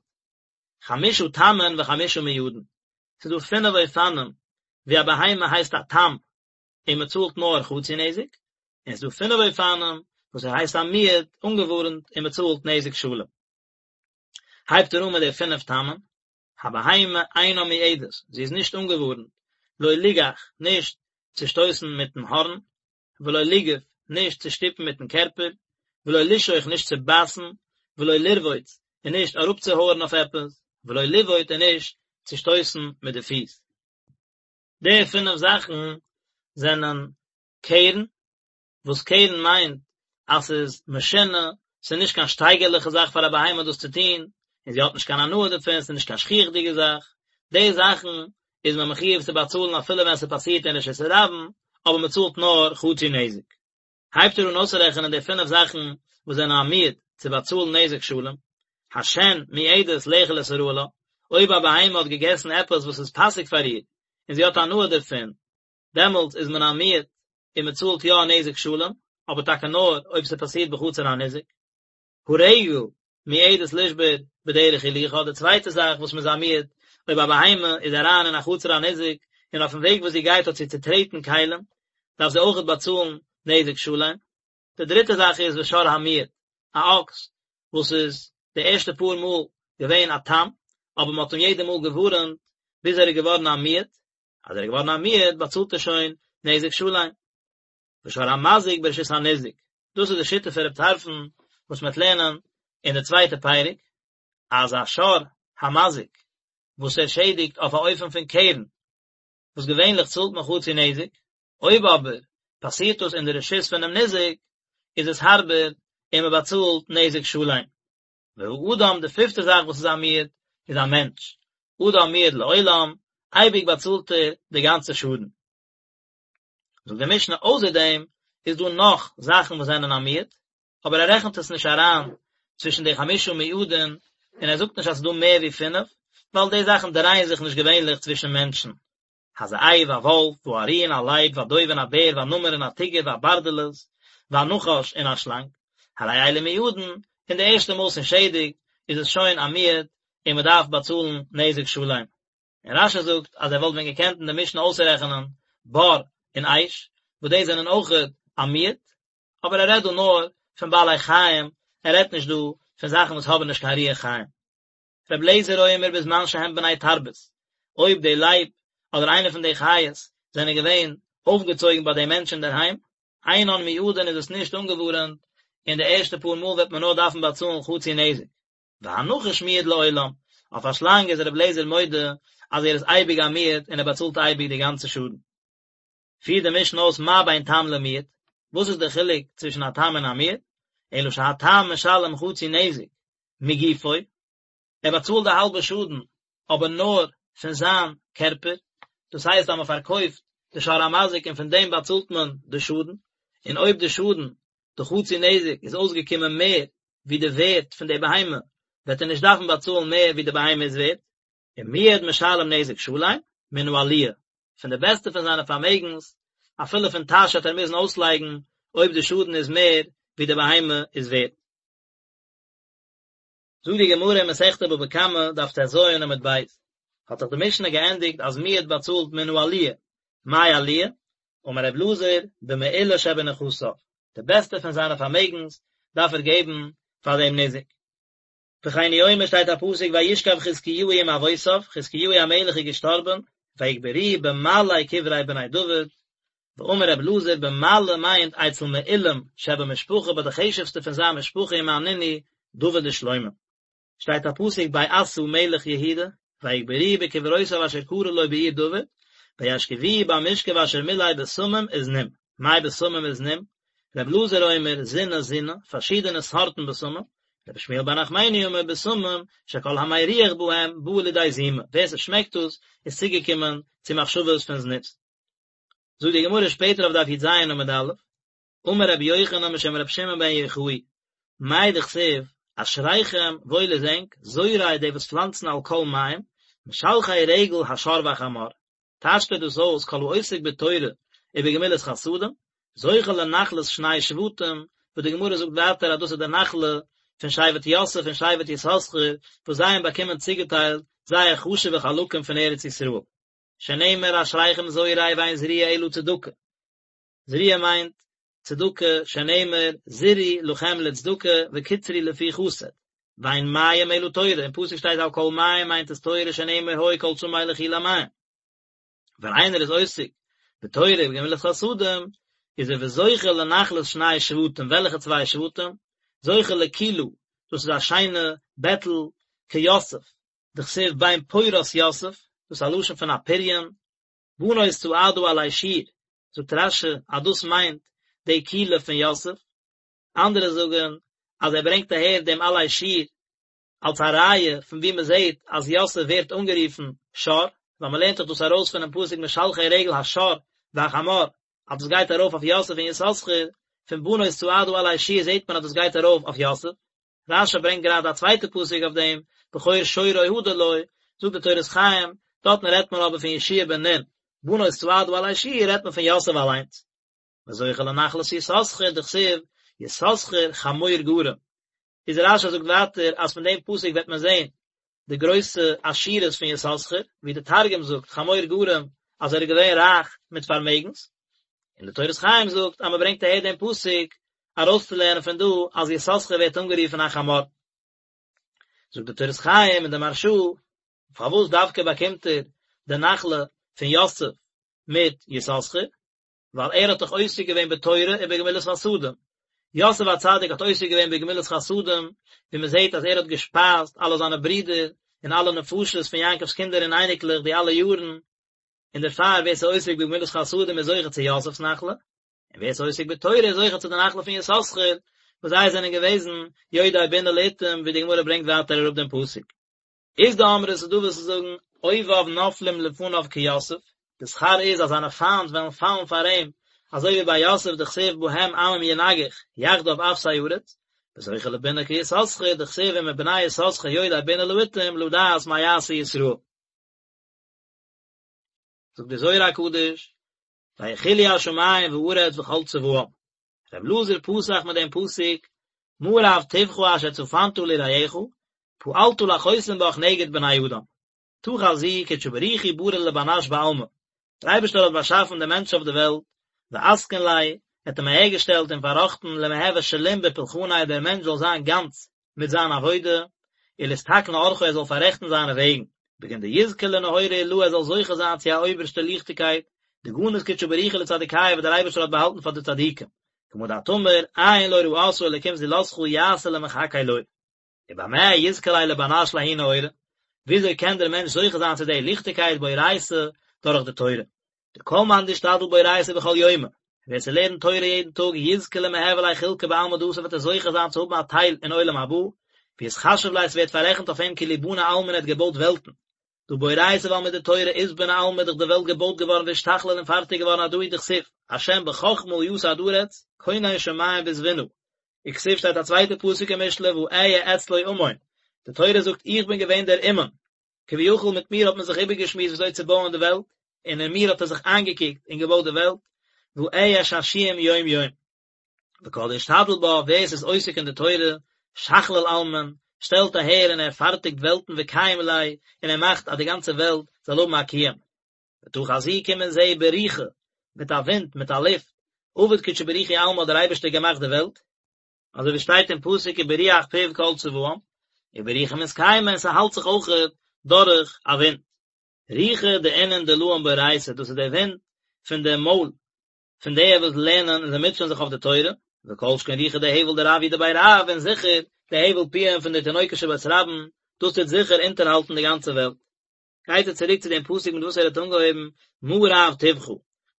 חמשה תמין וחמשה מועדין, ס'איז דא פינף אופנים ווי א בהמה הייסט א תם און מען צאלט נאר חצי נזק, און ס'איז דא פינף אופנים וואס ער הייסט א מועד, אנגעווארנט, און מען צאלט נזק שלם. הייבט ער אן מיט די פינף תמין, הבהמה אינה מועדת, זי איז נישט אנגעווארנט, לא ליגח, נישט צו שטויסן מיטן הארן, ולא ליגוף, נישט צו שטופן מיטן קערפער, ולא לשוך, נישט צו בייסן, ולא לרבוץ, און נישט אראפצוהויערן אויף עפעס, ולא לבעוט, און נישט צו שטויסן מיט די פיס. די פינף זאכן זענען קרן, וואס קרן מיינט אז ס'איז משונה, ס'איז נישט קיין שטייגערליכע זאך פאר א בהמה דאס צו טון, און זי האט נישט קיין הנאה דערפון, ס'איז נישט קיין שכיח'דיגע זאך, די זאכן איז מען מחיוב צו באצאלן אפילו ווען ס'פאסירט אין רשות הרבים, אבער מ'צאלט נאר חצי נזק. הייבט ער אן אויסצורעכענען די פינף זאכן וואס זענען א מועד צו באצאלן נזק שלם, השן מועדת לאכול את הראוי לה, אויב א בהמה האט געגעסן עפעס וואס איז פאסיג פאר איר, און זי האט הנאה דערפון, דעמאלטס איז מען א מועד און מען צאלט יא נזק שלם, אבער טאקע נאר אויב ס'פאסירט בחצר הניזק. הרגל מועדת לשבור בדרך הילוכה, די צווייטע זאך וואס מ'איז א מועד, אויב א בהמה איז אריין אין א חצר הניזק און אויפן וועג וואס זי גייט האט זי צוטרעטן כלים, דארף זי אויכעט באצאלן נזק שלם. די דריטע זאך איז ושור המועד, א אקס וואס איז די ערשטע פאר מאל געווען א תם, אבער מ'האט אים יעדע מאל געווארענט ביז ער איז געווארן א מועד, אז ער איז געווארן א מועד באצאלט ער שוין נזק שלם. ושור המזיק ברשות הניזק, דאס איז די שיטה פון רב טרפון וואס מ'וועט לערנען אין די צווייטע פרק, אז א שור המזיק וואס ער שעדיגט אויף א אופן פון קרן, וואס געווענליך צאלט מען חצי נזק, אויב אבער פאסירט דאס אין די רשות פונעם ניזק, איז עס הארבער און מען באצאלט נזק שלם. והאדם, די פיפטע זאך וואס איז א מועד, איז א מענטש, אדם מועד לעולם, אייביג באצאלט ער די גאנצע שאדן. זאגט די משנה אויסער דעם איז דא נאך זאכן וואס זענען א מועד, אבער ער רעכנט עס נישט אריין צווישן די חמשה מועדין, און ער זאגט נישט אז ס'איז דא מער ווי פינף, ווייל די זאכן דרייען זיך נישט געווענליך צווישן מענטשן. הזאב, א וואלף, והארי און א לייב, והדוב און א בער, והנמר און א טיגער, והברדלס, והנחש און א שלאנג, הרי אלו מועדין, אין די ערשטע מאל ס'שעדיגט איז עס שוין א מועד און מ'דארף באצאלן נזק שלם. און רש"י זאגט אז ער וואלט ווען געקענט אין די משנה אויסרעכענען בור און אש, וואס די זענען אויכעט א מועד, אבער ער רעדט דא נאר פון בעלי חיים, ער רעדט נישט דא פון זאכן וואס האבן נישט קיין רוח חיים. ר' אליעזר אומר בזמן שהם בני תרבות, אויב די לייב אדער איינע פון די חיות זענען געווען אויפגעצויגן ביי די מענטש אינדערהיים, אינן מועדין איז עס נישט אנגעווארענט, און די ערשטע פאר מאל וועט מען נאר דארפן באצאלן חצי נזק. והנחש מועד לעולם, אויף א שלאנג איז ר' אליעזר מודה אז ער איז אייביג א מועד און ער באצאלט אייביג די גאנצע שאדן. פירט די משנה אויס מה בין תם למועד, וואס איז די חילוק צווישן א תם און א מועד, אלא שהתם משלם חצי נזק מגופו, ער באצאלט די האלבע שאדן אבער נאר פון זיין קערפער, דאס הייסט אז מען פארקויפט די שור המזיק און פון דעם באצאלט מען די שאדן, און אויב די שאדן, די חצי נזק, איז אויסגעקומען מער ווי די ווערט פון די בהמה, וועט ער נישט דארפן באצאלן מער ווי די בהמה איז ווערט, ומועד משלם נזק שלם, מן העליה, פון די בעסטע פון זיינע פארמעגנס, אפילו פון טאש וועט ער מוזן אויסלייגן אויב די שאדן איז מער ווי די בהמה איז ווערט. זאגט די גמרא אין מסכת בבא קמא, דף טז עמוד ב', האט דאך די משנה געענדיגט אז מועד באצאלט מן העליה, מאי עליה? אמר ר' אלעזר, במעולה שבנכסיו, די בעסטע פון זיינע פארמעגנס דארף ער געבן פאר דעם ניזק. וכן הוא אומר שטייט א פסוק וישכב חזקיהו עם אבותיו, חזקיהו המלך איז געשטארבען, ויקברוהו במעלה קברי בני דוד, ואמר ר' אלעזר במעלה מיינט אצל מעולים שבמשפחה ביי די חשובסטע פון זיין משפחה ומאן נינהו דוד ושלמה. שטייט א פסוק ביי אסא מלך יהודה, ויקברוהו בקברותיו אשר כרה לו בעיר דוד, וישכיבוהו במשכב אשר מלא בשמים וזנים, מאי בשמים וזנים? ר' אלעזר אומר זיני זיני, פארשידענע סארטן בשמים, רבי שמואל בר נחמני אומר בשמים שכל המריח בהם בא לידי זימה, ווער ס'שמעקט דאס איז צוגעקומען צו מחשבות פון זנות. זאגט די גמרא שפעטער אויף דף יז עמוד א', אמר רבי יוחנן משום רבי שמעון בן יוחאי, מאי דכתיב, אשריכם, וואויל איז ענק, זורעי די וואס פלאנצן על כל מים, משלחי רגל השור והחמור, טייטשט ער דאס אויס כל העוסק בתורה ובגמילות חסדים, זוכה לנחלת שני שבטים, וואס די גמרא זאגט ווייטער אז דאס איז די נחלה פון שבט יוסף און שבט יששכר, וואס זיי האבן באקומען צוגעטיילט זייער חשוב'ע חלקים פון ארץ ישראל. שנאמר אשריכם זורעי ואין זריעה אלא צדקה. זריעה מיינט צדקה, שנאמר זרעו לכם לצדקה וקצרו לפי חסד. ואין מים אלא תורה, אין פסוק שטייט על כל מים מיינט עס תורה שנאמר הוי כל צמא לכו למים. ווען איינער איז עוסק בתורה ובגמילות חסדים, איז ער וזוכה לנחלת שני שבטים, וועלכע צוויי שבטים? זוכה לכילה, דאס איז א שיינע בעטל כיוסף, דכתיב בן פורת יוסף, דאס איז א לשון פון א פריון, בנות צעדה עלי שור, זאגט רש"י אז דאס מיינט די כילה פון יוסף, אנדערע זאגן אז ער ברענגט אהער דעם עלי שור אלס א ראיה פון וואו מען זעט אז יוסף ווערט אנגערופן שור, ווייל מען לערנט דאך דאס ארויס פונעם פסוק משלחי רגל השור והחמור אז דאס גייט ארויף אויף יוסף און יששכר, פון בנות צעדה עלי שור זעט מען אז דאס גייט ארויף אויף יוסף. רש"י ברענגט גראדע א צווייטע פסוק אויף דעם, בכור שורו הדר לו, זאגט די תורת חיים, דארטן רעדט מען אבער פון יהושע בן נון, בנות צעדה עלי שור רעדט מען פון יוסף אליינס. וזוכה לנחלת יששכר דכתיב יששכר חמור גרם. איז רש"י זאגט ווייטער אז פון דעם פסוק וועט מען זען די גרויסע עשירות פון יששכר, ווי די תרגום זאגט חמור גרם אז ער איז געווען רייך מיט פארמעגנס, און די תורת חיים זאגט אז מען ברענגט אהער דעם פסוק ארויסצולערנען פון דא אז יששכר ווערט אנגערופן א חמור. זאגט די תורת חיים און די מהרש"א, פארוואס דווקא באקומט ער די נחלה פון יוסף מיט יששכר? ווייל ער האט דאך עוסק געווען בתורה ובגמילות חסדים, יוסף הצדיק האט עוסק געווען בגמילות חסדים, ווי מען זעט אז ער האט געשפייזט אלע זיינע ברידער און אלע נפשות פון יעקב'ס קינדער און אייניקלעך די אלע יארן, און דערפאר ווער ס'איז עוסק בגמילות חסדים איז זוכה צו יוסף'ס נחלה, און ווער ס'איז עוסק בתורה איז זוכה צו די נחלה פון יששכר, וואס זיי זענען געוועזן יודעי בינה לעתים, ווי די גמרא ברענגט ווייטער אראפ דעם פסוק. אית דאמרי ס'איז דא וואס זאגן אויביו נופלים לפניו כיוסף, די שכר איז אז זיינע פיינט וועלן פאלן פאר אים, אזוי ווי ביי יוסף דכתיב בהם עמים ינגח, יחדיו אפסי ארץ, וזוכה לבינה כיששכר דכתיב ומבני יששכר יודעי בינה לעתים לדעת מה יעשה ישראל. זאגט דער זוהר הקדוש, ויכלו השמים והארץ וכל צבאם, ר' אלעזר פתח מיט דעם פסוק, מה רב טובך אשר צפנת ליראיך, פעלת לחוסים בך נגד בני אדם. תא חזי קודשא בריך הוא ברא לבר נש בעלמא, דער אייבערשטער האט באשאפן דעם מענטש אויף די וועלט, ואתקן ליה, ער האט אים אהערגעשטעלט און פארראכטן למהוי שלים בפולחניה דער מענטש זאל זיין גאנץ מיט זיין עבודה, ולאתתקנא אורחוי ער זאל פאררעכטן זיינע וועגן, בגין דיזכה לנהורא עילאה ער זאל זוכה זיין צו א אויבערשטע ליכטיגקייט, דגניז קודשא בריך הוא לצדיקיא וואס דער אייבערשטער האט באהאלטן פאר די צדיקים, כמה דאת אמר, עין לא ראתה אלקים זולתך יעשה למחכי לו. ובמה יזכה ליה לבר נש לההוא נהורא, וויאזוי קען דער מענטש זוכה זיין צו די ליכטיגקייט באורייתא דורך די תורה? דכל מאן דאשתדל באורייתא בכל יומא, ווער ס'לערנט תורה יעדן טאג יזכה למהוי ליה חולקא בעלמא דאתי וועט ער זוכה זיין צו האבן א טייל אין עולם הבא, ואתחשב ליה ס'ווערט פאררעכנט אויף אים כאילו בני עלמין ער האט געבויט וועלטן. דהא באורייתא ווייל מיט די תורה אתבני עלמא איז דאך די וועלט געבויט געווארן ואשתכלל און פארטיג געווארן הדא הוא דכתיב, השם בחכמה יסד ארץ, כונן שמים בתבונה. וכתיב שטייט א צווייטע פסוק אין משלי ואהיה אצלו אומן, די תורה זאגט איך בין געווען דער אומן, כביכול מיט מיר האט מען זיך איבערגעשמועסט וויאזוי צו בויען די וועלט, און אין מיר האט ער זיך איינגעקוקט און געבויט די וועלט, ואהיה שעשועים יום יום. וכל דאשתדל בה, ווער עס איז עוסק אין די תורה, שכליל עלמין, שטעלט אהער און ער פארטיגט וועלטן וקיים ליה, און ער מאכט אז די גאנצע וועלט זאל האבן א קיום. ותא חזי קום און זע ברוחא, מיט א ווינט, מיט א לופט, עביד קודשא בריך הוא עלמא האט דער אייבערשטער געמאכט די וועלט, אזוי ווי שטייט אין פסוק וברוח פיו כל צבאם, וברוחא מתקיימא און ס'האלט זיך אויכעט דורך א ווינט. רוחא דאינון דלעין באורייתא, דאס איז דער ווינט פון די מויל פון די וואס לערנען און זיי מוטשען זיך אויף די תורה, וכל שכן רוחא דהבל דרביא דבי רב, און זיכער די הבל פיהם פון די תינוקות של בית רבן, דאס טוט זיכער אונטערהאלטן די גאנצע וועלט. גייט ער צוריק צו דעם פסוק מיט וואס ער האט אנגעהויבן, מה רב טובך,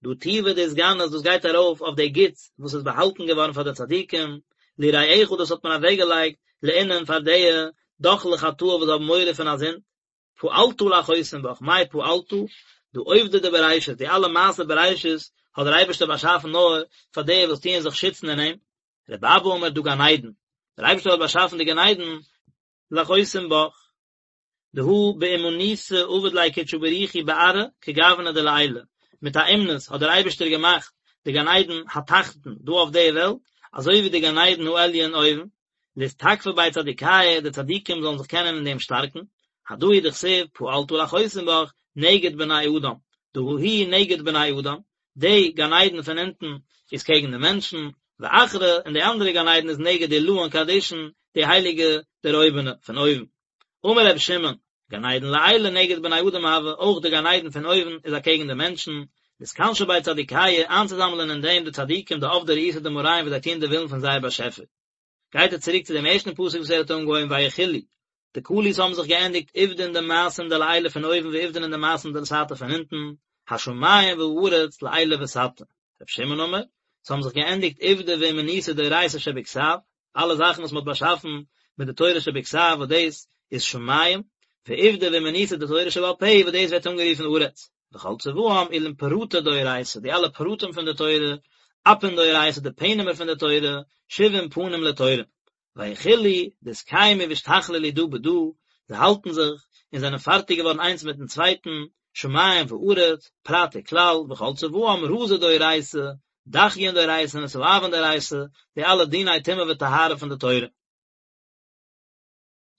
דא טובא דאתגניז דאס גייט ארויף אויף די גוטס וואס איז באהאלטן געווארן פאר די צדיקים, ליראיך דאס האט מען אוועקגעלייגט לאינון פאר די דחלי חטאה וואס האבן מורא פון א זינד, פעלת לחוסים בך, מאי פעלת? דא עובדא דבראשית, די אלע מעשה בראשית האט דער אייבערשטער באשאפן נאר פאר די וואס טוען זיך שיצן אין אים, רבי אבא אמר דא גן עדן, דער אייבערשטער האט באשאפן די גן עדן לחוסים בך. דהא באומנותא עביד ליה קודשא בריך הוא בארעא כגוונא דלעילא, מיט א אומנות האט דער אייבערשטער געמאכט די גן עדן התחתון דא אויף די וועלט, אזוי ווי די גן עדן העליון אויבן, לאתתקפא ביה צדיקיא, די צדיקים זאלן זיך קענען אין דעם שטארקן, הדא הוא דכתיב פעלת לחוסים בך נגד בני אדם, דהא הוא נגד בני אדם, די גן עדן פון אונטן איז קעגן די מענטשן, ואחרא, און די אנדערע גן עדן איז נגד עילאין קדישין, די הייליגע דערהויבענע פון אויבן. אמר רבי שמעון, גן עדן לעילא נגד בני אדם הוה, אויך די גן עדן פון אויבן איז אקעגן די מענטשן, לאתכנשא ביה צדיקיא, איינצוזאמלען אין דעם די צדיקים דעבדי רעותא דמאריהון וואס זיי טוען די ווילן פון זייער באשעפער. גייט ער צוריק צו דעם ערשטן פסוק וואס ער האט אנגעהויבן ויכולו, תכלו ס'האבן זיך געענדיגט עובדין די מעשים דלעילא פון אויבן ועובדין און די מעשים דלתתא פון אונטן, השמים והארץ לעילא ותתא. רבי שמעון אמר, ס'האבן זיך געענדיגט עובדא ואומנותא דאורייתא שבכתב, אלע זאכן וואס מ'האט באשאפן מיט די תורה שבכתב וואס דאס איז שמים, ועובדא ואומנותא דתורה שבעל פה וואס דאס ווערט אנגערופן ארץ, וכל צבאם אלין פרטי דאורייתא, די אלע פרטים פון די תורה, אפין דאורייתא, די פענעמער פון די תורה, שבעים פנים לתורה. ויכולו, דאתקיימו ואשתכללו דא בדא, זיי האלטן זיך, און זענען פארטיג געווארן איינס מיטן צווייטן, שמים וארץ, פרט וכלל, וכל צבאם רזי דאורייתא, דכיין דאורייתא נתאוין דאורייתא, די אלע דיני טומאה וטהרה פון די תורה.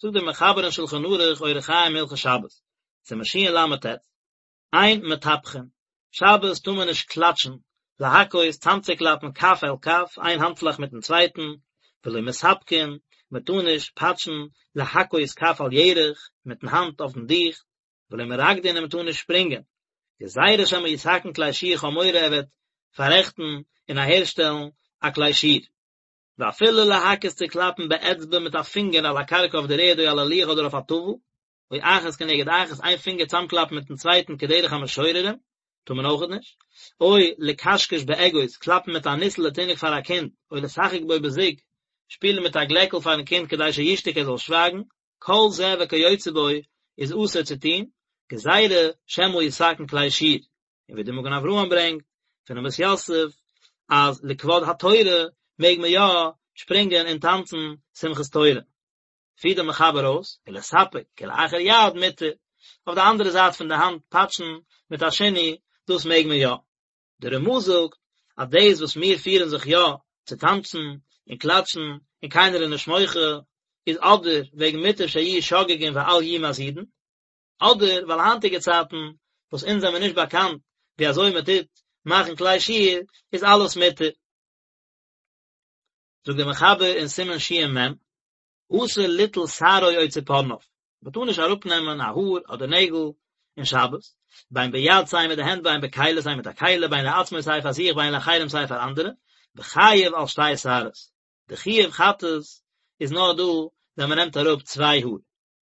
זאגט דער מחבר אין שלחן ערוך אורח חיים הלכות שבת, סימן של"ט, אין מטפחין, שבת טאר מען נישט קלאטשן, להכות, צאמצוקלאפן כף אל כף, איין האנטפלאך מיטן צווייטן, ולא מספקין, מען טאר נישט פאטשן, להכות כף על ירך, מיטן האנט אויפן דיך, ולא מרקדין און מען טאר נישט שפרינגען, גזירה שמא יתקן כלי שיר כ'האב מורא ער וועט פאררעכטן און אהערשטעלן א כלי שיר. ואפילו להכות צו קלאפן באצבע מיט א פינגער על הקרקע אויף דער ערד או על הלוח אדער אויף א טאוול, או אחת כנגד אחת איין פינגער צאמקלאפן מיטן צווייטן כדרך המשוררים, טאר מען אויכעט נישט, או לקשקש באגוז, קלאפן מיט א ניסל לתינוק פאר א קינד, או לשחק בו בזוג, שפילן מיט א גלעקל פארן קינד כדי שישתוק ער זאל שווייגן, כל זה וכיוצא בו איז אסור צו טון, גזירה שמא יתקן כלי שיר, און ווי דער מגן אברהם ברענגט פונעם בית יוסף אז לכבוד התורה מעג מען יא שפרינגען און טאנצן שמחת תורה. פירט דער מחבר אויס, ולספק כלאחר יד מותר, אויף די אנדערע זייט פון די האנט פאטשן מיט א שינוי, דאס מעג מען יא. דער רמ"א זאגט אז דאס וואס מיר פירן זיך יא צו טאנצן און קלאטשן און קיינער איז נישט מוחה, איז אדער וועגן מוטב שיהיו שוגגין ואל יהיו מזידין, אדער ווייל היינטיגע צייטן וואס אונז זעמיר נישט באקאנט ווי אזוי מען טוט מאכן כלי שיר איז אלעס מותר. זאגט דער מחבר אין סימן ש"מ, אסור ליטול שערו או ציפורניו, מען טאר נישט אראפנעמען א האר אדער נעגל אין שבת, בין ביד סיי מיט די הענט בין בכלי סיי מיט א כלי, בין לעצמו סיי פאר זיך בין לאחרים סיי פאר אנדערע, וחייב על שתי שערות, די חיוב חטאת איז נאר דא ווען מען נעמט אראפ צוויי האר.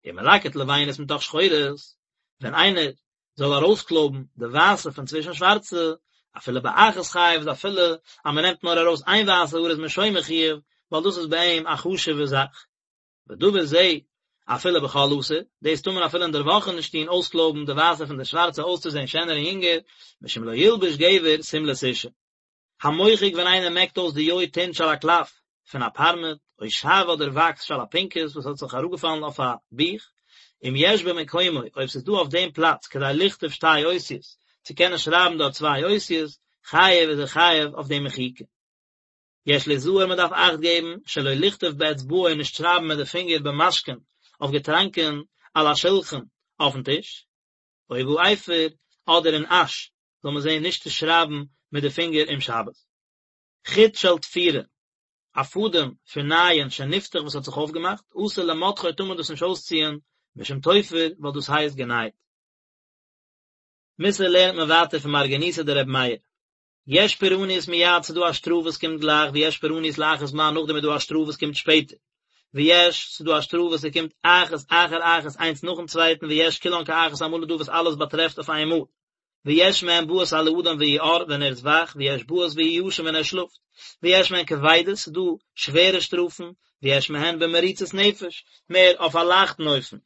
ומלקט לבנות מתוך שחורות, ווען איינער זאל ארויסקלויבן די ווייסע פון צווישן שווארצע, אפילו באחת חייב איז אפילו אז מען נעמט נאר ארויס איין ווייסע האר איז מען שוין מחויב, ווייל דאס איז ביי אים א חשוב'ע זאך. ודבר זה אפילו בחול אסור, דאס טאר מען אפילו אינדערוואכן נישט טון אויסקלויבן די ווייסע פון די שווארצע אויסצוזען שענער און יונגער, משום לא ילבש גבר שמלת אשה. המוחק ווען איינער מעקט אויס דיו טינט שעל הקלף פון א פארמעט, או שעוה אדער וואקס שעל הפנקס וואס האט זיך אראפגעפאלן אויף א בוך, אם יש במקומו אויב ס'איז דא אויף דעם פלאץ כדי לכתוב שתי אותיות צו קענען שרייבן דארט צוויי אותיות, חייב איז ער חייב אויף די מחיקה. יש ליזהר מען דארף אכט געבן שלא לכתוב באצבעו נישט שרייבן מיט די פינגער במשקין אויף געטראנקען על השולחן אויפן טיש, או באפר אדער אין אש זאל מען זען נישט צו שרייבן מיט די פינגער אום שבת. חוט של תפירה, א פאדעם פון נייען שנפתח וואס האט זיך אויפגעמאכט, אסור למתחו טאר מען דאס נישט אויסציען משום תופר ווייל דאס הייסט גענייט. מוסר לערנט מען ווייטער פון מרגניתא דרבי מאיר. יש פורעניות מיד ס'דא א שטראף וואס קומט גלייך ויש פורעניות לאחר זמן נאכדעם איז דא א שטראף וואס קומט שפעטער ויש ס'דא א שטראף וואס ס'קומט אחת אחר אחת איינס נאכן צווייטן ויש כולן כאחת אמאל איז דא וואס אלעס באטרעפט אויף איין מאל ויש מהן באות על האדם והוא ער ווען ער איז וואך ויש באות והוא ישן ווען ער שלאפט ויש מהן כבידות ס'דא שווערע שטראפן ויש מהן במריצות נפש מער אויף א לייכטן אופן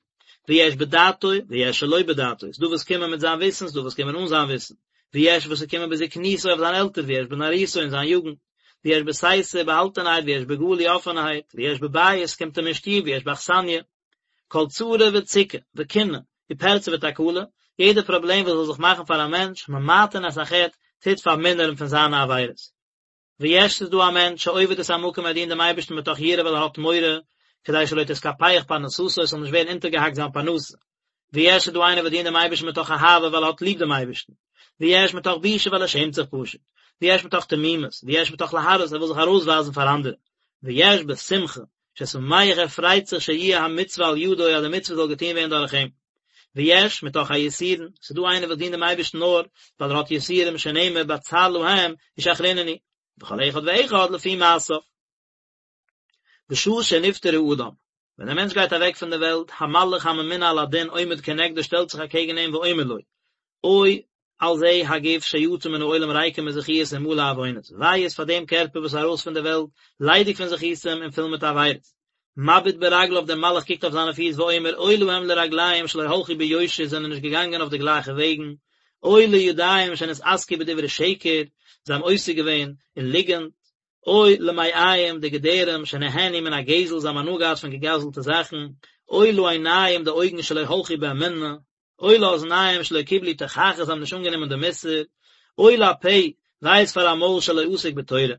ויש בדעתו ויש שלא בדעתו, ס'דא וואס קומען מיט זיין וויסן, ס'דא וואס קומען אן זיין וויסן, ויש וואס ס'קומען בזקנותו אויף זיין עלטער, ויש בנערותו אין זיין יוגנט, ויש בסתר באהאלטענהייט, ויש בגלוי אפענערהייט, ויש בבית קומט אים אין שטוב, ויש באכסניא. כל צרה וצוקה וקנאה ופרצה ותקלה, יעדע פראבלעם וואס זאל זיך מאכן פאר א מענטש, ממעטין את החטא, טוט פארמינערן פון זיינע עבירות. ויש ס'איז דא א מענטש שעובד את המקום ער דינט דעם אייבערשטן מתוך יראה ווייל ער האט מורא, כדי שלא תתקפח פרנסתו עס זאל נישט ווערן אונטערגעהאקט זיין פרנסה. ויש ס'איז דא איינער וואס דינט דעם אייבערשטן מתוך אהבה ווייל ער האט ליב דעם אייבערשטן. ויש מתוך בושה ווייל ער שעמט זיך פשוט. ויש מתוך תמימות. ויש מתוך להראות ער וויל זיך ארויסווייזן פאר אנדערע. ויש בשמחה, ששמח ער פרייט זיך שיהיה המצוה על ידו אז די מצוה זאל געטון ווערן דורך אים. ויש מתוך היסורין, ס'איז דא איינער וואס דינט דעם אייבערשטן נאר ווייל ער האט יסורים שנאמר בצר להם ישחרונני, וכל אחד ואחד לפי מעשיו. בשעה שנפטר האדם, ווען דער מענטש גייט אוועק פון דער וועלט, המלאך הממונה על הדין עומד כנגדו שטעלט זיך אקעגן אים ואומר לו, אוי על זה הגוף שיצא מן העולם ריקם מזכיות ומלא עוונות, וויי איז פאר דעם קערפער וואס איז ארויס פון דער וועלט ליידיג פון זכותים און פול מיט עבירות. מביט ברגליו דער מלאך קוקט אויף זיינע פיס ואומר אוי להם לרגליים שלא הלכו ביושר זענען נישט געגאנגען אויף די גלייכע וועגן, אוי לידיים שנתעסקו בדברי שקר זיי האבן עוסק געווען אין ליגענט, אוי למעיים די געדערים שנהנו מן הגזל זיי האבן הנאה געהאט פון געגזלטע זאכן, אוי לעיניים די אויגן שלא הלכו באמונה, אוי לאזניים שלא קיבלו תוכחה זיי האבן נישט אנגענומען די מוסר, אוי לפה וויי איז פאר א מויל שלא עסק בתורה,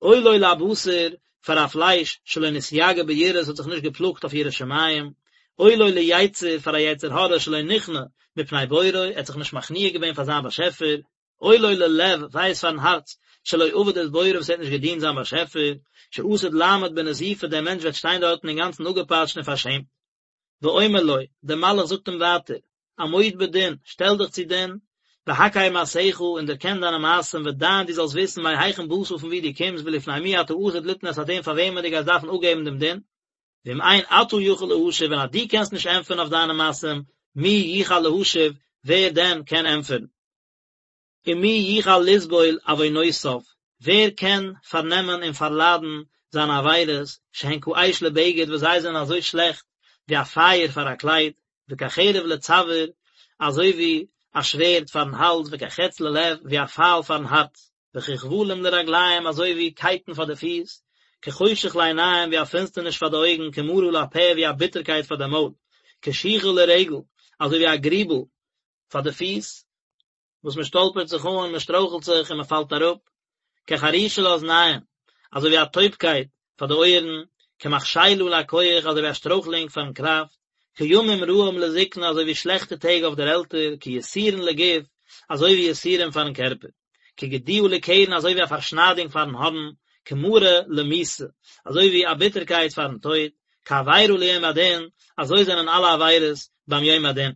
אוי לו לבשר פאר א פלייש שלא נתייגע ביראה ס'האט זיך נישט געפלאגט אויף יראת שמים, אוי לו ליצר פאר א יצר הרע שלא נכנע מפני בוראו ער האט זיך נישט מכניע געווען פאר זיין באשעפער, אוי לו ללב, וויי איז פארן הארץ, שלא עבד את בוראו וואס ער האט נישט געדינט זיין באשעפער, שעתיד לעמוד בנזיפה דער מענטש וועט שטיין דארטן אינגאנצן אפגעפאטשט און פארשעמט. ואומר לו, דער מלאך זאגט אים ווייטער, עמוד בדין, שטעל דיך צו דין, והכר מעשיך, און דערקען דיינע מעשים, ודע און דו זאלסט וויסן מהיכן באת פון וואו דו קומסט ולפני מי אתה עתיד ליתן את הדין פאר וועמען דו גייסט דארפן אפגעבן דעם דין, ואם אין אתה יכול להשיב ווען אז דו קענסט נישט ענטפערן אויף דיינע מעשים, מי יוכל להשיב, ווער דען קען ענטפערן? ומי יוכל לסבול עוונותיו, ווער קען פארנעמען און פארליידן זיינע עבירות, שהן כאש לבגד וואס זיי זענען אזוי שלעכט ווי א פייער פאר א קלייד, וכחרב לצוואר, אזוי ווי א שווערד פארן האלז, וכחץ ללב, ווי א פייל פארן הארץ, וככבלים לרגליים, אזוי ווי קייטן פאר די פיס, כחושך לעיניים, ווי א פינסטערניש פאר די אויגן, כמרה לפה, ווי א ביטערקייט פאר די מויל, כשוחה לרגל, אזוי ווי א גריבל פאר די פיס, וואס מען שטאלפערט זיך אן, מען שטרויכלט זיך און מען פאלט אראפ, כחרישה לאזניים, אזוי ווי א טויבקייט פאר די אויערן, כמכשלה לכח, אזוי ווי א שטרויכלונג פארן קראפט, כימים רעים לזקנה, אזוי ווי שלעכטע טעג אויף דער עלטער, כיסורין לגוף, אזוי ווי יסורים פארן קערפער, כגדיעה לקרן, אזוי ווי א פארשניידונג פארן הארן, כמרה למיתה, אזוי ווי א ביטערקייט פארן טויט, כעבירה ליום הדין, אזוי זענען אלע עבירות ביים יום הדין.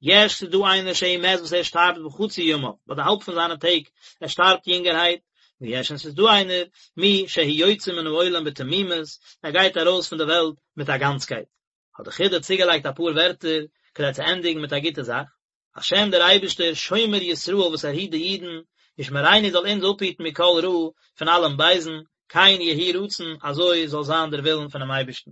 יש ס'איז דא איינער שהוא מת וואס ער שטארבט בחצי ימיו, ביי די האלב פון זיינע טעג, ער שטארבט יונגערהייט, ויש און ס'איז דא איינער מי שהוא יוצא מן העולם בתמימות, ער גייט ארויס פון די וועלט מיט א גאנצקייט. האט די חידא צוגעלייגט אפאר ווערטער כדי צו ענדיגן מיט א גוטע זאך, השם דער אייבערשטער שומר ישראל וואס ער היט די אידן, ישמרנו זאל אונז אפהיטן מכל רע, פון אלעם בייזן, כן יהי רצון, אזוי זאל זיין דער ווילן פונעם אייבערשטן.